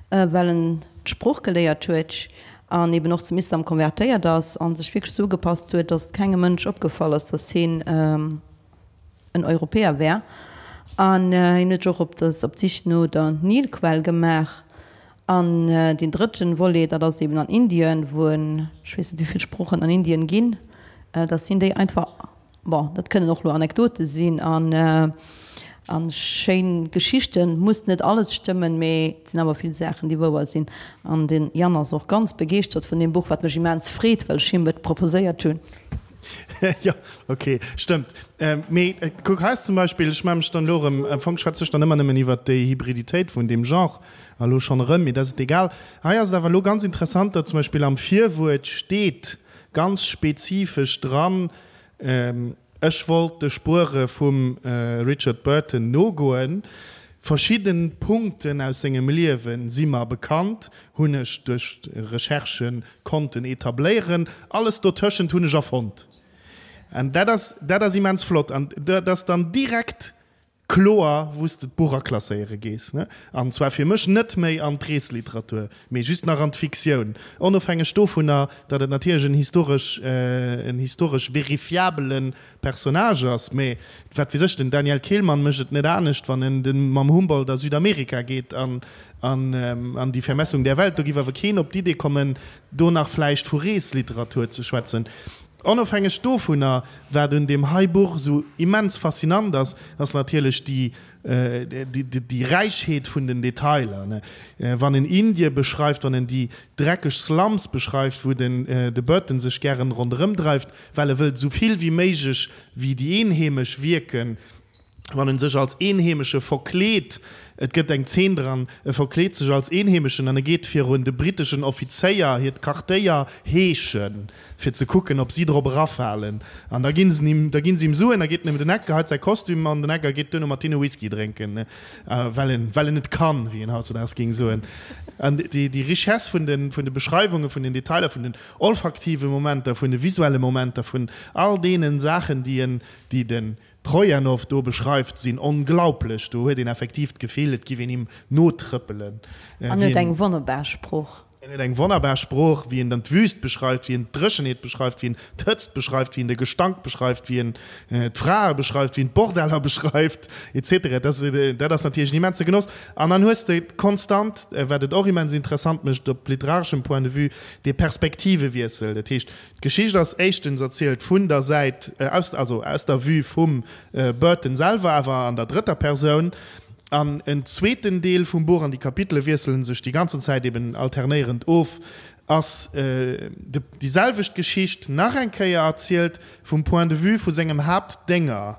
well en d'Sprooch geléiert huet an eben och zum Islam konvertéiert ass a sech wierklech esou ugepasst huet, datt et kengem Mënsch opgefall ass, datt hien en Europäer wär. An hien huet sech och op d'Sich no der Nilquell gemaach. An deen drëtten Volet, dat ass eben an Indien, wou en, ech weess net wéi vill Sproochen an Indien ginn, datt hien déi einfach Bon, dat kënnen och lo Anekdote sinn an a schéin Geschichten. Muss net alles stëmmen, mee et sinn awer vill Saachen, déi wouer sinn. An den Yann ass och ganz begeeschtert vun deem Buch, wat mech immens freet, well ech him et proposéiert hunn. Jo, ok, stëmmt. Mee kuck, hei ass zum Beispill, ech maache mech dann elo erëm, am Fong schwätze ech dann ëmmer nëmmen iwwert déi Hybriditéit vun deem Genre, a lo schonn erëm, mee dat ass et egal. Hei ass et awer elo ganz interessant, datt zum Beispill am Virwuert steet. ganz spezifesch dran, Ech wollt de Spuere vum Richard Burton nogoen. Verschidden Punkten aus sengem Liewen si mer bekannt, hunn ech duerch Recherchen konnten etabléieren. Alles dotëschent hunn ech erfonnt. An dat ass, dat ass immens flott. An dat ass dann direkt kloer, wou s de d'Buch aklasséiere gees, ne? An zwar fir mech net méi an d'Reesliteratur, mee just nach an d'Fiktioun, onofhängeg dovunner, datt et natierlech en historesch, en historesch verifiabele Personnage ass. Mee wat weess ech, den Daniel Kehlmann mécht et net anescht, wann en de mam Humboldt a Südamerika geet an an Die Vermessung der Welt. Do giff awer keen op d'Idee kommen, do nach vläicht vu Reesliteratur ze schwätzen. Onofhängeg dovunner, wat un deem hei Buch esou immens faszinant ass, ass natierlech déi, déi Räichheet vun den Detailer. Wann en Indie beschreift, wann en déi dreckeg Slums beschreift, wou den de Burton sech gären ronderëm dreift, well e wëllt esou vill wéi méiglech wéi déi Eenheemesch wierken, wann en sech als Eenheemesche verkleet, et gëtt eng Zeen dran, e verkleet sech als Eenheemeschen an e geet virun de britteschen Offizéier hiert Quartéier heeschen, fir ze kucken, ob si drop erafalen. An da ginn se him, da ginn se him Suen, da geet en ëm den Eck, geheit säi Kostüm an den Eck a geet duerno mat hinne Whisky drénken, well en, well en et kann, wéi een hautzudaags géing soen. An déi, déi Richesse vun de, vun de Beschreiwunge, vun den Detailer, vun den olfaktive Momenter, vun de visuelle Momenter, vun all deene Saachen, déi en, déi den Trojanow do beschreift, sinn onglaublech. Do huet een effektiv d'Gefill, et giff een him notrëppelen. An huet eng wonnerbar Sprooch. En huet eng wonnerbar Sprooch, wéi en dann d'Wüst beschreift, wéi en d'Dréchenheet beschreift, wéi en d'Hëtzt beschreift, wéi en de Gestank beschreift, wéi en d'Frae beschreift, wéi en d'Bordeller beschreift, etc. Dat ass, dat ass natierlech en immense Genoss. An dann hues de konstant, wat et och immens interessant mécht op literareschem Point de vue, dee Perspektivewiessel. Dat heescht, D'Geschicht ass éischtens erzielt vun der Säit aus, also aus der Vue vum Burton selwer, awer an der drëtter Persoun. An en zweeten Deel vum Buch, an déi Kapitele wiesselen sech déi ganzen Zäit eben alternéierend of, ass déi selwecht Geschicht nach eng Kéier erzielt vum Point de vue vu sengem Haaptdénger,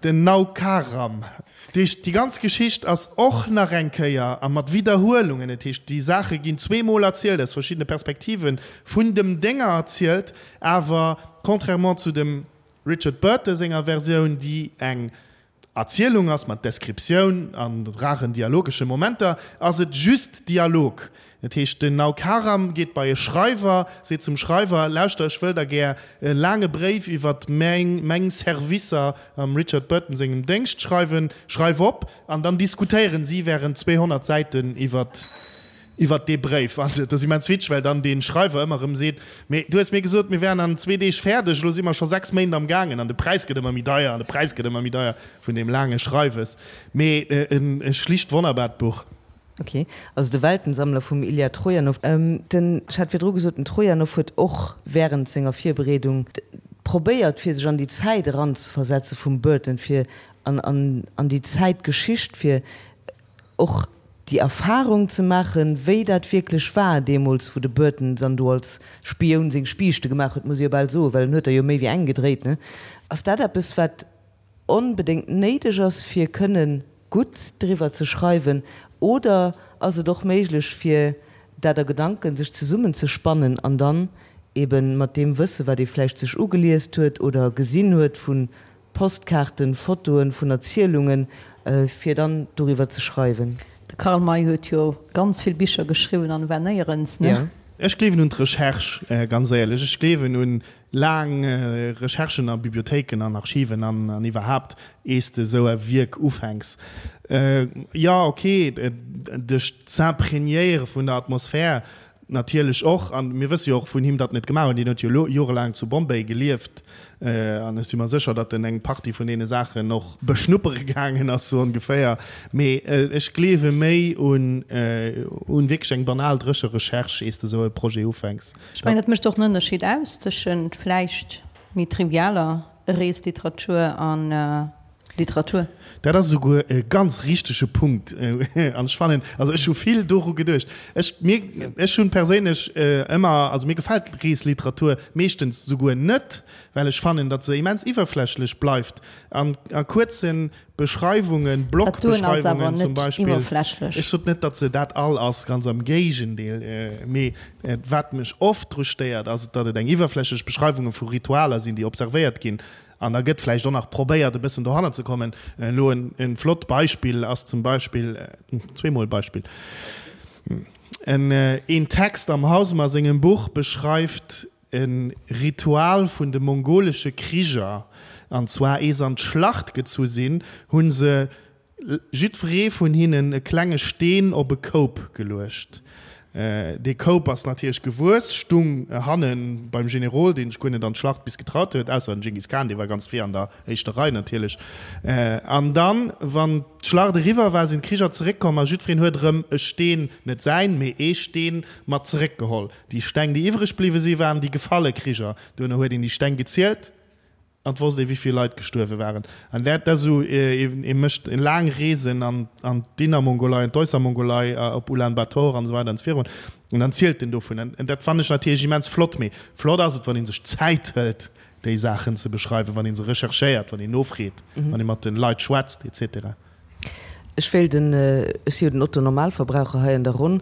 Den Naukaram. Dat heescht, déi ganz Geschicht ass och nach eng Kéier, a mat Widderhuelungen, dat heescht, déi Saache ginn zweemol erzielt, aus verschiddene Perspektiven, vun dem Dénger erzielt, awer contrairement zu dem Richard Burton senger Versioun, déi eng Erzielung ass mat Descriptioun a raren dialogesche Momenter, ass et just Dialog. Dat heescht, den Naukaram geet bei e Schreiwer, seet zum Schreiwer, Lauschter, ech wëll der gär e laange Bréif iwwer meng Servicer am Richard Burton sengem Déngscht schreiwen. Schreif op! An dann diskutéieren si während 200 Säiten iwwer iwwer dee Bréif. An dat ass immens witzeg, well dann dee Schreiwer ëmmer erëm seet, Mee du hues mir gesot, mir wären an zwee Deeg fäerdeg, elo si mer scho 6 Méint am gaangen an de Präis gëtt ëmmer méi deier an de Präis gëtt ëmmer méi deier vun deem laange Schreiwes. Mee e schlicht wonnerbart Buch. Ok, also de Weltensammler vum Ilja Trojanow. Den, ech hat virdru gesot, den Trojanow huet och während senger Virbereedung probéiert fir sech an déi Zäit eranzeversetze vum Burton, fir an an an déi Zäitgeschicht, fir och déi Erfahrung ze maachen, wéi dat wierklech war deemools, wou de Burton dann do als Spioun seng Spiichte gemaach huet, muss ee jo bal soen, well en huet der jo méi wéi eng gedréit, ne? Ass dat eppes, wat onbedéngt néideg ass fir kënnen gutt driwwer ze schreiwen, oder ass et och méiglech fir dat a Gedanken sech zesummen ze spannen an dann eben mat deem Wësse wat ee vläicht sech ugeliest huet oder gesinn huet vu Postkaarten, Fotoen, vun Erzielungen, fir dann doriwwer ze schreiwen? De Karl May huet jo ganz vill Bicher geschriwwen an war néierens, ne? Ech gleewen un d'Recherche, ganz éierlech. Ech gleewen un Laang Recherchen a Bibliothéiken an Archiven an iwwerhaapt, ees de esou e Wierk ufänks, jo ok, dech z'imprégnéiere vun der Atmosphär natierlech och. A mir wësse jo och vun him, datt en et gemaach huet. Hien huet jo jorelaang zu Bombay gelieft an ech si mer sécher, datt en eng Partie vun deene Saachen och beschnuppere gaangen ass, sou ongeféier. Mee ech gleewe méi un wierklech eng banal dréche Recherche, ees de esou e Projet ufänks. Ech mengen, dat mécht och en Ënnerscheed aus tëschent vläicht méi trivialer Reesliteratur an. Literatur. Dat ass esouguer e ganz richtege Punkt. An ech fannen, also ech hu vill doru geduecht. Ech, mir, ech hunn perséinlech ëmmer, also mir gefält Reesliteratur meeschtens esouguer net, well ech fannen, datt se immens iwwerflächlech bleift an a kuerze Beschreiwungen, Blogbeschreiwungen zum Beispill. Ech sot net, datt se dat all ass, ganz am Géigendeel. Mee wat mech oft dru stéiert, ass, datt et eng iwwerflächlech Beschreiwunge vu Ritualer sinn, déi observéiert ginn. An da gëtt vläicht och nach probéiert, e bëssen dohannert ze kommen. Elo en flott Beispill ass zum Beispill, zweemol Beispill, en Text am Hausemer sengem Buch beschreift e Ritual vun de mongolesche Kriger, an zwar ee se an d'Schlacht gezu sinn, hu se jiddweree vun hinnen e klenge Steen op e Koup geluecht. Dee Koup ass natierlech gewuess, stung hanne beim Generol, deen sech guer net an d'Schlacht bis getraut huet, ausser den Dschingis Khan, dee war ganz vir an der éischter Rei natierlech. An dann, wann d'Schlacht eriwwer war, sinn d'Kriger zeréckkomm a jiddwereen huet erëm e Steen, net säin, mee ee Steen mat zeréckgeholl. Déi Steng, déi iwwreg bliwwe si waren déi gefalle Kriger. Duerno huet een déi Steng gezielt an et wosst ee wéi vill Leit gestuerwe waren. An dat ass esou, ee mécht laang Reesen an an d'Innermongolei, an d'Äussermongolei, op Ulan Bator an esou weider an esou virun an dann zielt en dovun. An dat fannen ech natierlech immens flott. Mee flott ass et, wann ee sech Zäit hëlt, déi Saachen ze beschreiwen, wann ee se recherchéiert, wann een nofreet, wann ee mat de Leit schwätzt, et cetera. Ech wéilt en, ech si jo den Otto-Normalverbraucher hei an der Ronn,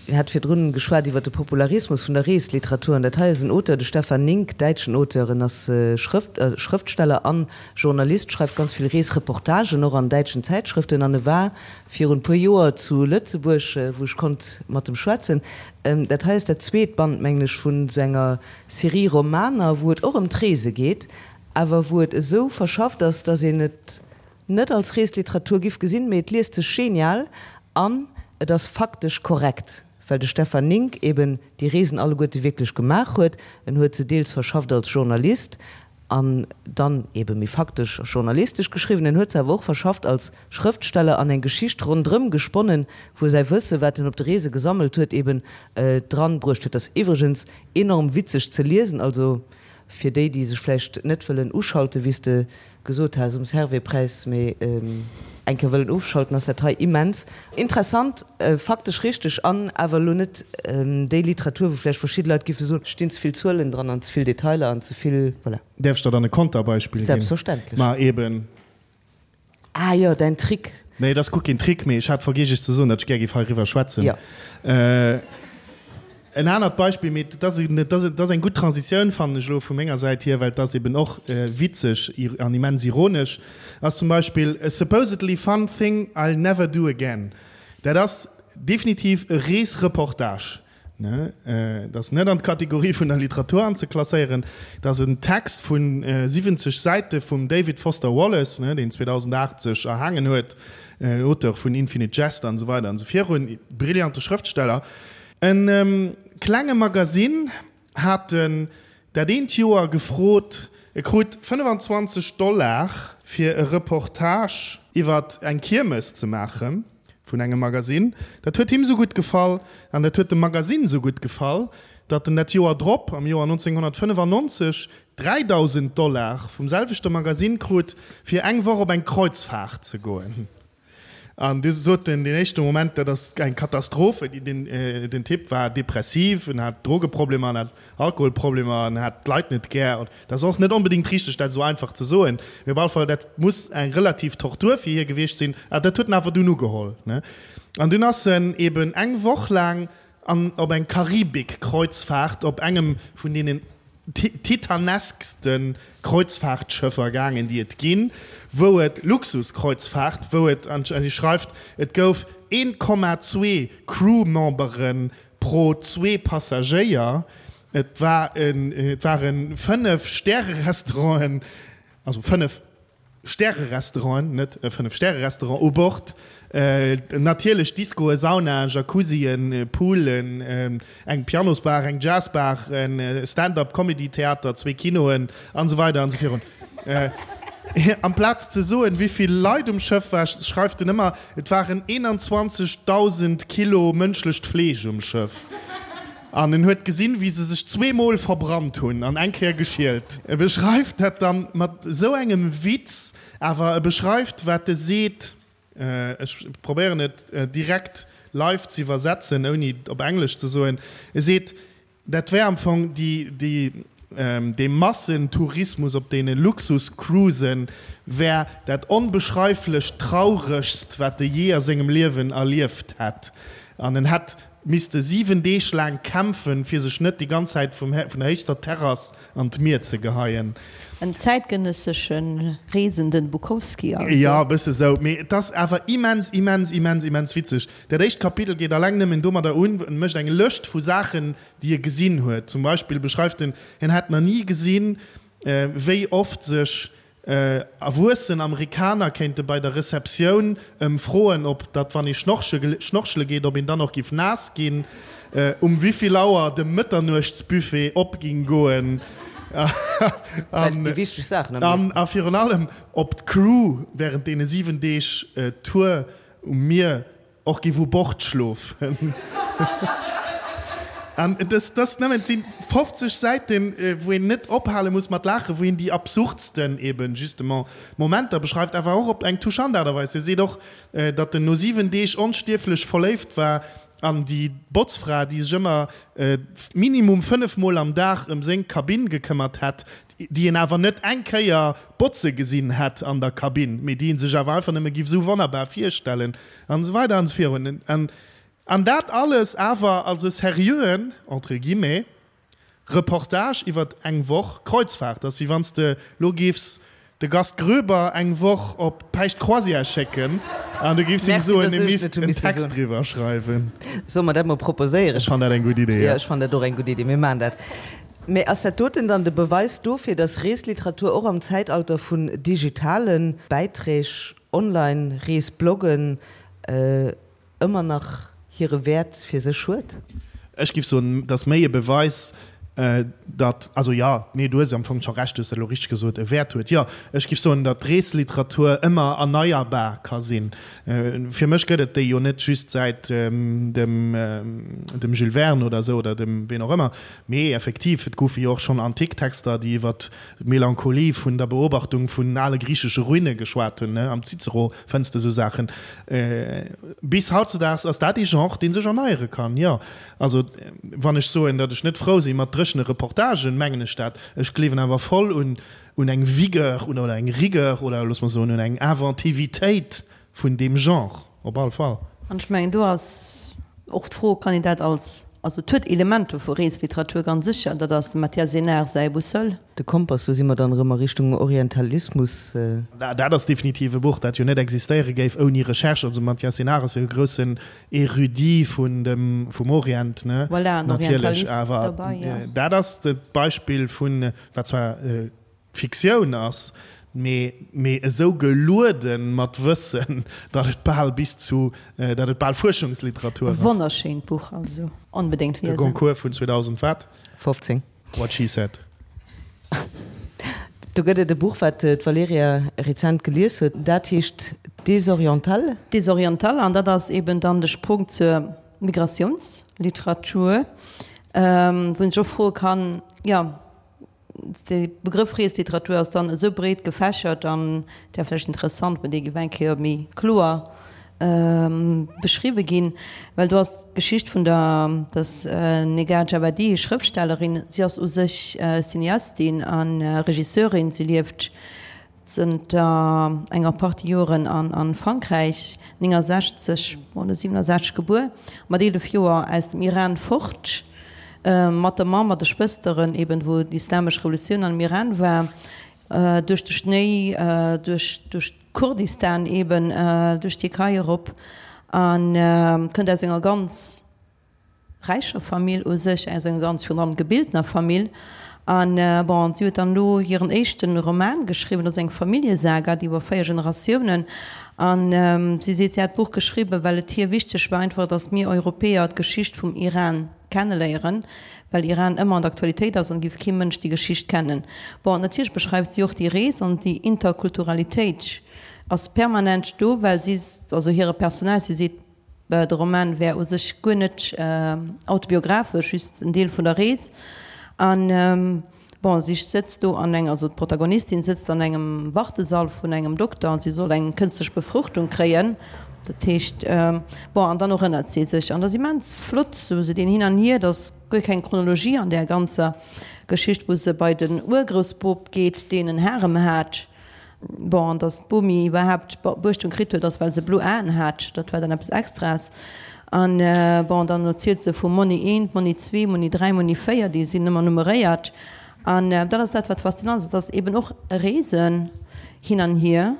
mir hat virdrun geschwat iwwer de Popularismus vun der Reesliteratur an dat hei ass en Auteur, de Stefan Nink, däitschen Auteur, en ass Schrëft, Schrëftsteller an Journalist, schreift ganz vill Reesreportagen och an däitschen Zäitschrëften an e war virun e puer Joer zu Lëtzebuerg, wou ech konnt mat em schwätzen. Dat hei ass dat zweet Band, mengen ech, vun esou enger Serie Romaner, wou et och ëm d'Reese geet, awer wou et esou verschafft ass, dass een et net als Reesliteratur giff gesinn, mee et liest sech genial an et ass faktesch korrekt, well de Stefan Nink eben déi Reesen alleguerte wierklech gemaach huet. En huet se deels verschafft als Journalist an dann ebe méi faktesch journalistesch geschriwwen, en huet se awer och verschafft als Schrëftsteller an eng Geschicht rondrëm gesponnen, wou e säi Wësse, wat en op de Reese gesammelt huet, eben dran bruecht huet. Ass iwwregens enorm witzeg ze liesen, also Fir déi, déi sech vläicht net wëllen uschalten, wéi s de gesot has um Servais-Präis, mee eng Kéier wëllen ofschalten, ass dat hei immens interessant, faktesch richteg an awer elo net déi Literatur, wou vläicht verschidde Leit giffe soen, et stinn ze vill Zuelen dran an ze vill Detailer an ze vill, voilà. Däerf ech der dann e Konterbeispill ginn? Selbstverständlech. Ma eben. Ah jo, däin Trick. Nee, et ass guer keen Trick, mee ech hat vergiess iech ze soen, datt ech gär géif heiriwwer schwätzen. Jo. En anert Beispill, mee et ass, et ass, et ass eng gutt Transitioun, fannen ech elo vu menger Säit hier, well et ass eben och witzeg an immens ironesch, ass zum Beispill A supposedly fun thing I'll never do again. Dat ass definitiv e Reesreportage. Et ass net an d'Kategorie vun der Literatur anzeklasséieren. Et ass en Text vu 70 Säite vum David Foster Wallace, deen 2008 sech erhaangen huet, Auteur vun Infinite Jest an esou weider an esou virun, brillante Schrëftsteller. E klenge Magasinn hat en dat eent Joer gefrot, e krut 25 Dollar fir e Reportage iwwer eng Kiermes ze maachen. Vun engem Magasinn. Dat huet him sou gutt gefall an dat huet dem Magasinn sou gutt gefall, datt en dat Joer drop, am Joer 1995, 3.000 Dollar vum selwechte Magasinn krut, fir eng Woch op eng Kreuzfaart ze goen. An du sot en deen éischte Moment, dat ass eng Katastroph. Den Typ war depressiv, en hat Drogeproblemer, en hat Alkoholproblemer, en hat d'Leit net gär. Dat ass och net onbedéngt richteg, dat esou einfach ze soen, mee op alle Fall, dat muss eng relativ Tortur fir hie gewiescht sinn. A dat huet en awer dunn ugeholl, ne? An dunn ass en eben eng Woch laang an op eng Karibik-Kreuzfahrt op engem vun deenen titaneskste Kreuzfahrtschëffer gaangen, déi et ginn, wou et, Luxuskreuzfahrt, wou et, an hie schreift, et gouf 1,2 Crewmembere pro zwee Passagéier. Et war en, et ware 5 Stäre-Restauranten, also 5 Stäre-Restauranten, net e 5 Stäre-Restaurant u Bord, natierlech Discoe, Saunaen, Jacuzzien, Poolen, eng Pianosbar, eng Jazzbar, e Stand-up-Comedy-Theater, zwee Kinoen an esou weider an esou virun. Amplaz ze soen, wéi vill Leit um Schëff war, schreift en ëmmer, et waren 21.000 Kilo mënschlecht Fleesch um Schëff. An en huet gesinn, wéi se sech zweemol verbrannt hunn an eng Kéier geschielt. E beschreift dat dann mat esou engem Witz, awer e beschreift, wat e seet, ech probéieren et direkt live ze iwwersetzen, ouni et op Englesch ze soen, e seet, Dat wär am Fong déi, déi, dee Massentourismus op deene Luxuscruisen wär dat onbeschreiflech Trauregst, wat e jee a sengem Liewen erlieft hätt. An en hätt misste 7 Deeg laang kämpfen, fir sech net déi ganz Zäit vum, vun der héichster Terrass an d'Mier ze geheien. En zäitgenëssesche Reesenden Bukowski also. Jo, e bësse sou. Mee et ass awer immens, immens, immens, immens witzeg. Dat éischt Kapitel geet alleng nëmmen domadder un, en mécht eng Lëscht vu Saachen, déi e gesinn huet. Zum Beispill beschreift en, hien hätt nach ni gesinn, wéi oft sech erwuessen Amerikaner kéinte bei der Receptioun ëm froen, ob datt wann ee schnorchele geet, ob een dann och giff naass ginn, um wivill Auer de Mëtternuechtsbuffet op ging goen Déi wichteg Saachen am Liewen. a virun allem, ob d'Crew während deene 7 Deeg Tour Um Mier och giff u Bord schlofen. An dës dës nëmmen, et si 50 Säiten, wou een net ophale muss mat laachen, wou een déi absurdsten eben justement Momenter beschreift, awer och op eng touchant Aart a Weis. Hie seet och, datt en no 7 Deeg onstierflech verléift war an déi Botzfra, déi sech ëmmer minimum 5 Mol am Dag ëm seng Kabinn gekëmmert hätt, déi een awer net eng Kéier botze gesinn hätt an der Kabinn, mee déi ee sech awer einfach nëmme giff esou wonnerbar virstellen, an esou weider an esou virun. An dat alles awer als e seriöen, entre guillemets, Reportage iwwert eng Woch Kreuzfahrt. Dat ass wéi wann s de lo giffs de Gast Groeber eng Woch op Päischt Croisière schécken an du giffs him soen, e misst en Text driwwer schreiwen. Solle mer dat mol proposéieren? Ech fannen dat eng gutt Idee, jo. Jo, ech fannen dat och eng gutt Idee. Mir maachen dat. Mee ass dat doten dann de Beweis dofir, dass Reesliteratur och am Zäitalter vun digitale Bäiträg, online Reesbloggen, ëmmer nach hire Wäert fir sech huet? Ech giff soen, et ass méi e Beweis, datt, also jo, nee, du hues am Fong scho Recht, du hues dat elo richteg gesot, e Wäert huet. Jo, ech giff soen, datt d'Reesliteratur ëmmer erneierbar ka sinn. Fir mech gëtt et déi jo net just säit dem dem Jules Verne oder esou oder dem ween och ëmmer, Mee effektiv, et goufe jo och schonn antik Texter, déi iwwer d'Melancholie vun der Beobachtung vun ale griichesche Ruine geschwat hunn, am Cicero fënns de esou Saachen. Bis hautzedaags ass dat ee Genre, dee sech erneiere kann, jo. Also, wann ech soen, datt ech net frou si mat dréchene Reportagen, mengen ech dat. Ech gleewen awer voll un un eng Vigueur oder eng Rigueur oder looss mer soen un eng Inventivitéit vun deem Genre, op all Fall. An ech mengen, do ass och d'Fro, kann een dat als, also et huet Elementer vu Reesliteratur, ganz sécher, dat ass dem Mathias Énard säi Boussole. De Kompass, do si mer dann erëm a Richtung Orientalismus. Dat ass definitiv e Buch, dat jo net existéiere géif ouni Recherche. Also Mathias Énard ass jo e groussen Érudit vun dem, vum Orient, ne? Voilà, en Natierlech, Orientalist awer derbei, jo. dat ass d'Beispill vun, wat zwar Fiktioun ass, mee mee esou geluede mat Wëssen, datt et bal bis zu, datt et bal Fuerschungsliteratur ass. Wonnerschéint Buch, also onbedéngt De liesen. Goncourt vun 2000 wat? 15. What she said. Do gëtt et e Buch, wat d'Valerija rezent gelies huet, dat heescht Désorientales. Désorientales, an dat ass eben dann de Sprong zur Migrationsliteratur, wou een sech och froe kann, jo, De Begrëff Reesliteratur ass dann esou breet gefächert an et wär vläicht interessant, wann dee géif eng Kéier méi kloer beschriwwe ginn, well do ass d'Geschicht vun der dass Negar Djawadi, Schrëftstellerin, si ass u sech Cineastin a Regisseurin, si lieft Zënter enger Partie Joren an Frankräich, 69 oder 67 gebuer, mat 11 Joer aus dem Iran fort, mat der Mamm, mat de Schwësteren, eben wou d'islamesch Revolutioun an dem Iran war, duerch de Schnéi, duerch duerch Kurdistan eben, duerch d'Tierkei erop, a kënnt aus enger ganz räicher Famill u sech, aus enger ganz virun allem gebiltener Famill. An bon, si huet dann elo hiren éischte Roman geschriwwen, dat ass eng Familljesaga, déi iwwer 4 Generatiounen. An si seet, si hätt d'Buch geschriwwen, well et hir wichteg war einfach, datt mir Europäer d'Geschicht vum Iran kenneléieren, well Iran ëmmer an der Aktualitéit ass an et géif kee Mënsch déi Geschicht kennen. Bon, natierlech beschreift si och déi Rees an déi Interkulturalitéit ass permanent do, well si, also hire Personnage, si seet. De Roman wär u sech guer net autobiographesch, just en Deel vun der Rees. An bon, si sëtzt do an eng, also d'Protagonistin sëtzt an engem Wartesall vun engem Dokter an si soll eng kënstlech Befruchtung kréien. Dat heescht, bon, an dann erënnert si sech. An dat ass immens flott, sou deen Hin an Hier, et ass guer keng Chronologie an där ganzer Geschicht, wou se bei den Urgroussbop geet, deen en Harem hat. Bon, an datt d'Bomi iwwerhaapt Beuechtung kritt huet, ass well se blo Aen hat. Dat war dann eppes Extraes. An bon, dann erzielt se vu Monni eent, Monni zwee, Monni dräi, Monni véier, déi sinn ëmmer nummeréiert. An dat ass dat, wat faszinant ass. Et ass eben och e Reesen hin an hier,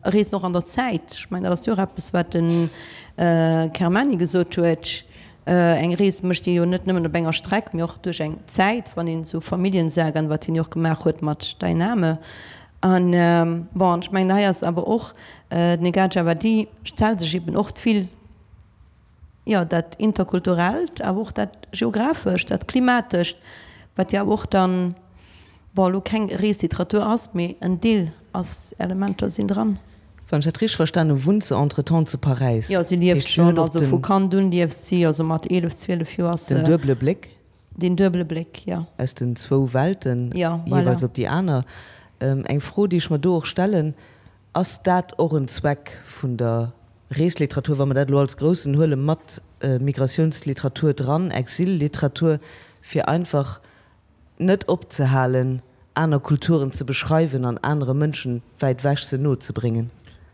e Reesen och an der Zäit. Ech mengen, dat ass jo och eppes, wat de Kermani gesot huet, Eng Rees mécht ee jo net nëmmen op enger Streck, mee och duerch eng Zäit, wann een esou Familljensagaen, wat hien jo och gemaach huet mat Dein Name, An bon, ech mengen, hei ass awer och, d'Negah Djawadi stellt sech eben och vill, jo, dat Interkulturellt, awer och dat Geographescht, dat Klimatescht, wat jo awer och dann, bon, elo keng Reesliteratur ass, mee en Deel ass, Elementer sinn dran. Wann ech dat richteg verstan hu, wunnt se entretemps zu Paräis. Jo, si lieft schonn, also vu Kand un lieft si, also mat 11, 12 Joer ass se. Den duebele Bléck. Deen duebele Bléck, jo. Aus den zwou Welten, jeeweils op déi aner. Eng Fro, déi ech mer do och stellen, Ass dat och en Zweck vun der Reesliteratur, wa mer dat elo als Groussen huele mat Migrationsliteratur dran, Exilliteratur, fir einfach net opzehalen, aner Kulturen ze beschreiwen an anere Mënschen wäit ewech se no ze bréngen?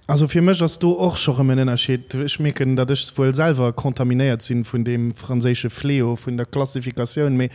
Also fir mech ass do och scho rëm en Ënnerscheed. Ech mierken, datt ech wuel selwer contaminéiert sinn vun deem franséische Fléau vun der Klassifikatioun, mee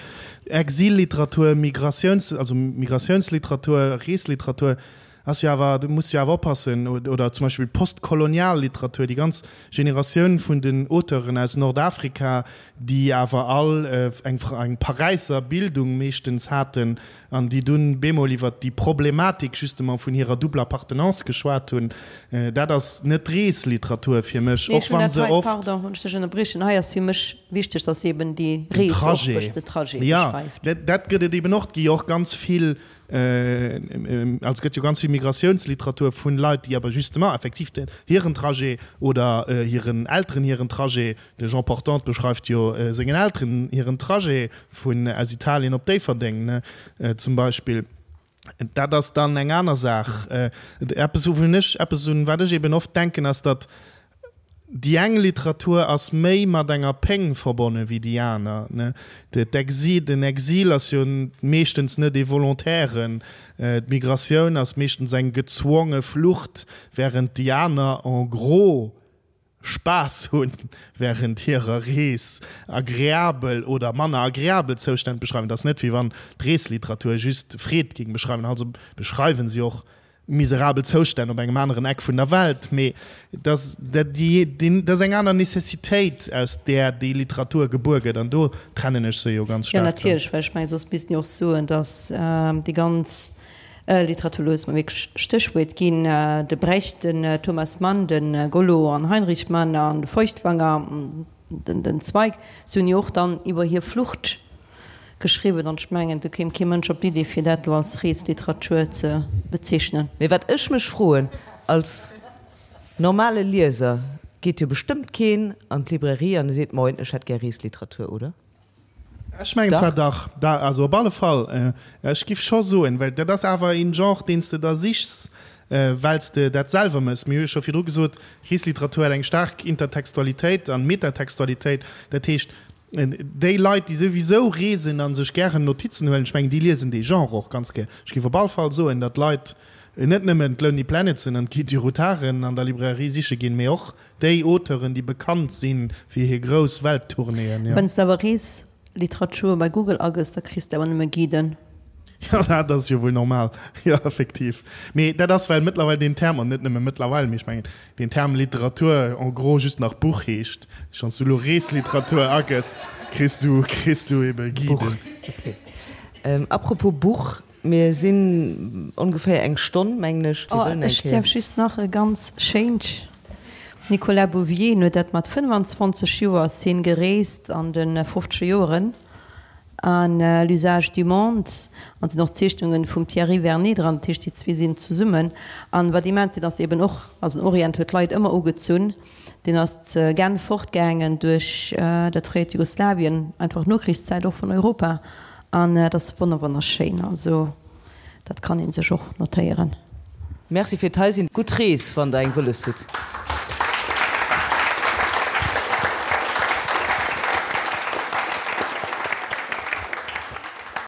Exilliteratur, Migratiouns-, also Migrationsliteratur, Reesliteratur ass jo awer, do muss jo awer oppassen, oder zum Beispill postkolonial Literatur, déi ganz Generatioun vun den Auteuren aus Nordafrika, déi awer all eng eng Paräisser Bildung meeschtens haten an déi dunn bemol iwwer déi Problematik justement vun hirer double Appartenance geschwat hunn, dat ass net Reesliteratur fir mech, och wa se oft. Pardon, wann ech dech ënnerbriechen, hei ass fir mech wichteg, dass eben déi Rees och den Trajet beschreift. Jo, dat gëtt et eben och. Et gi jo och ganz vill, also et gëtt jo ganz vill Migrationsliteratur vun Leit, déi awer justement effektiv hiren Trajet oder hiren Elteren hiren Trajet De Jean Portante beschreift jo sengen Elteren hiren Trajet vun aus Italien op Déifferdeng, ne, zum Beispill. Dat ass dann eng aner Saach. Eppes, wouvun ech, eppes un wat ech eben oft denken, ass, datt déi eng Literatur ass méi mat enger Péng verbonne wéi déi aner, ne. D'Exil, den Exil ass jo meeschtens net ee volontairen, d'Migratioun ass meeschtens eng gezwonge Flucht, während déi aner en gros Spaass hunn während hirer Rees, agreabel oder manner agreabel Zoustänn beschreiwen. Et ass net wéi wann d'Reesliteratur just Freed géing beschreiwen, also beschreiwen si och miserabel Zoustänn op engem aneren Eck vun der Welt, mee et ass dat ass eng aner Necessitéit aus där déi Literatur gebuer gëtt an do trennen ech se jo ganz Jo, staark dann. natierlech, well ech mengen, soss misst een jo och soen, datt déi ganz Literatur loosse mer wierklech Stéchwuert ginn, de Brecht, den Thomas Mann, de Gollo an Heinrich Mann an de Feuchtwanger, den Zweig, si hunn jo och dann iwwer hir Flucht geschriwwen an ech mengen, do kéim kee Mënsch op d'Idee fir dat elo als Reesliteratur ze bezeechnen. Mee wat ech mech froen, als normale Lieser geet jo bestëmmt keen an d'Librairie an e seet, Moin, ech hätt gär Reesliteratur, oder? Ech mengen zwar dach, da, also op alle Fall, ech giff scho soen, well dat ass awer een Genre, deen s de der sichs, well s de dat selwer mëss. Mir hu jo scho virdru gesot, Reesliteratur huet eng staark Intertextualitéit an Metatextualitéit. Dat heescht, déi Leit, déi souwisou reesen a sech gären Notizen huelen, ech mengen, déi liesen dee Genre och ganz gär. Ech giff op all Fall soen, datt Leit net nëmmen d'Lonely Planetsen an d'Guide du Routaren an der Librairie siche ginn, mee och Déi Auteuren, déi bekannt si fir hir grouss Welttournéeën, jo. Wann s de awer Reesliteratur bei Google agëss, da kriss de awer nëmme Guiden. Jo, dat ass jo wuel normal. Jo, effektiv. Mee dat ass, well mëttlerweil deen Term, an net nëmme mëttlerweil, mee ech mengen, deen Term Literatur en gros just nach Buch heescht. Wann s du elo Reesliteratur agëss, kriss du, kriss du ebe Guiden. Buch, okay. Apropos Buch, Mir sinn ongeféier eng Stonn, mengen ech. Oh, ech däerf just nach e ganz schéint Nicolas Bouvier, en huet dat mat 25 Joer ass hien gereest an de fofzeger Joeren. An L'usage du monde, an sinn och Zeechnungen vum Thierry Vernet dran, dat heescht déi zwee sinn zesummen. An wat immens sinn ass eben och, also den Orient huet d'Leit ëmmer ugezunn, deen ass ze Genf fortgaangen duerch dat fréiert Jugoslawien, einfach Nokrichszäit och vun Europa, an dat ass wonner wonnerschéin, also dat kann ee sech och notéieren. Merci fir d'Hei sinn. Gutt Rees wann der eng wëlles hutt.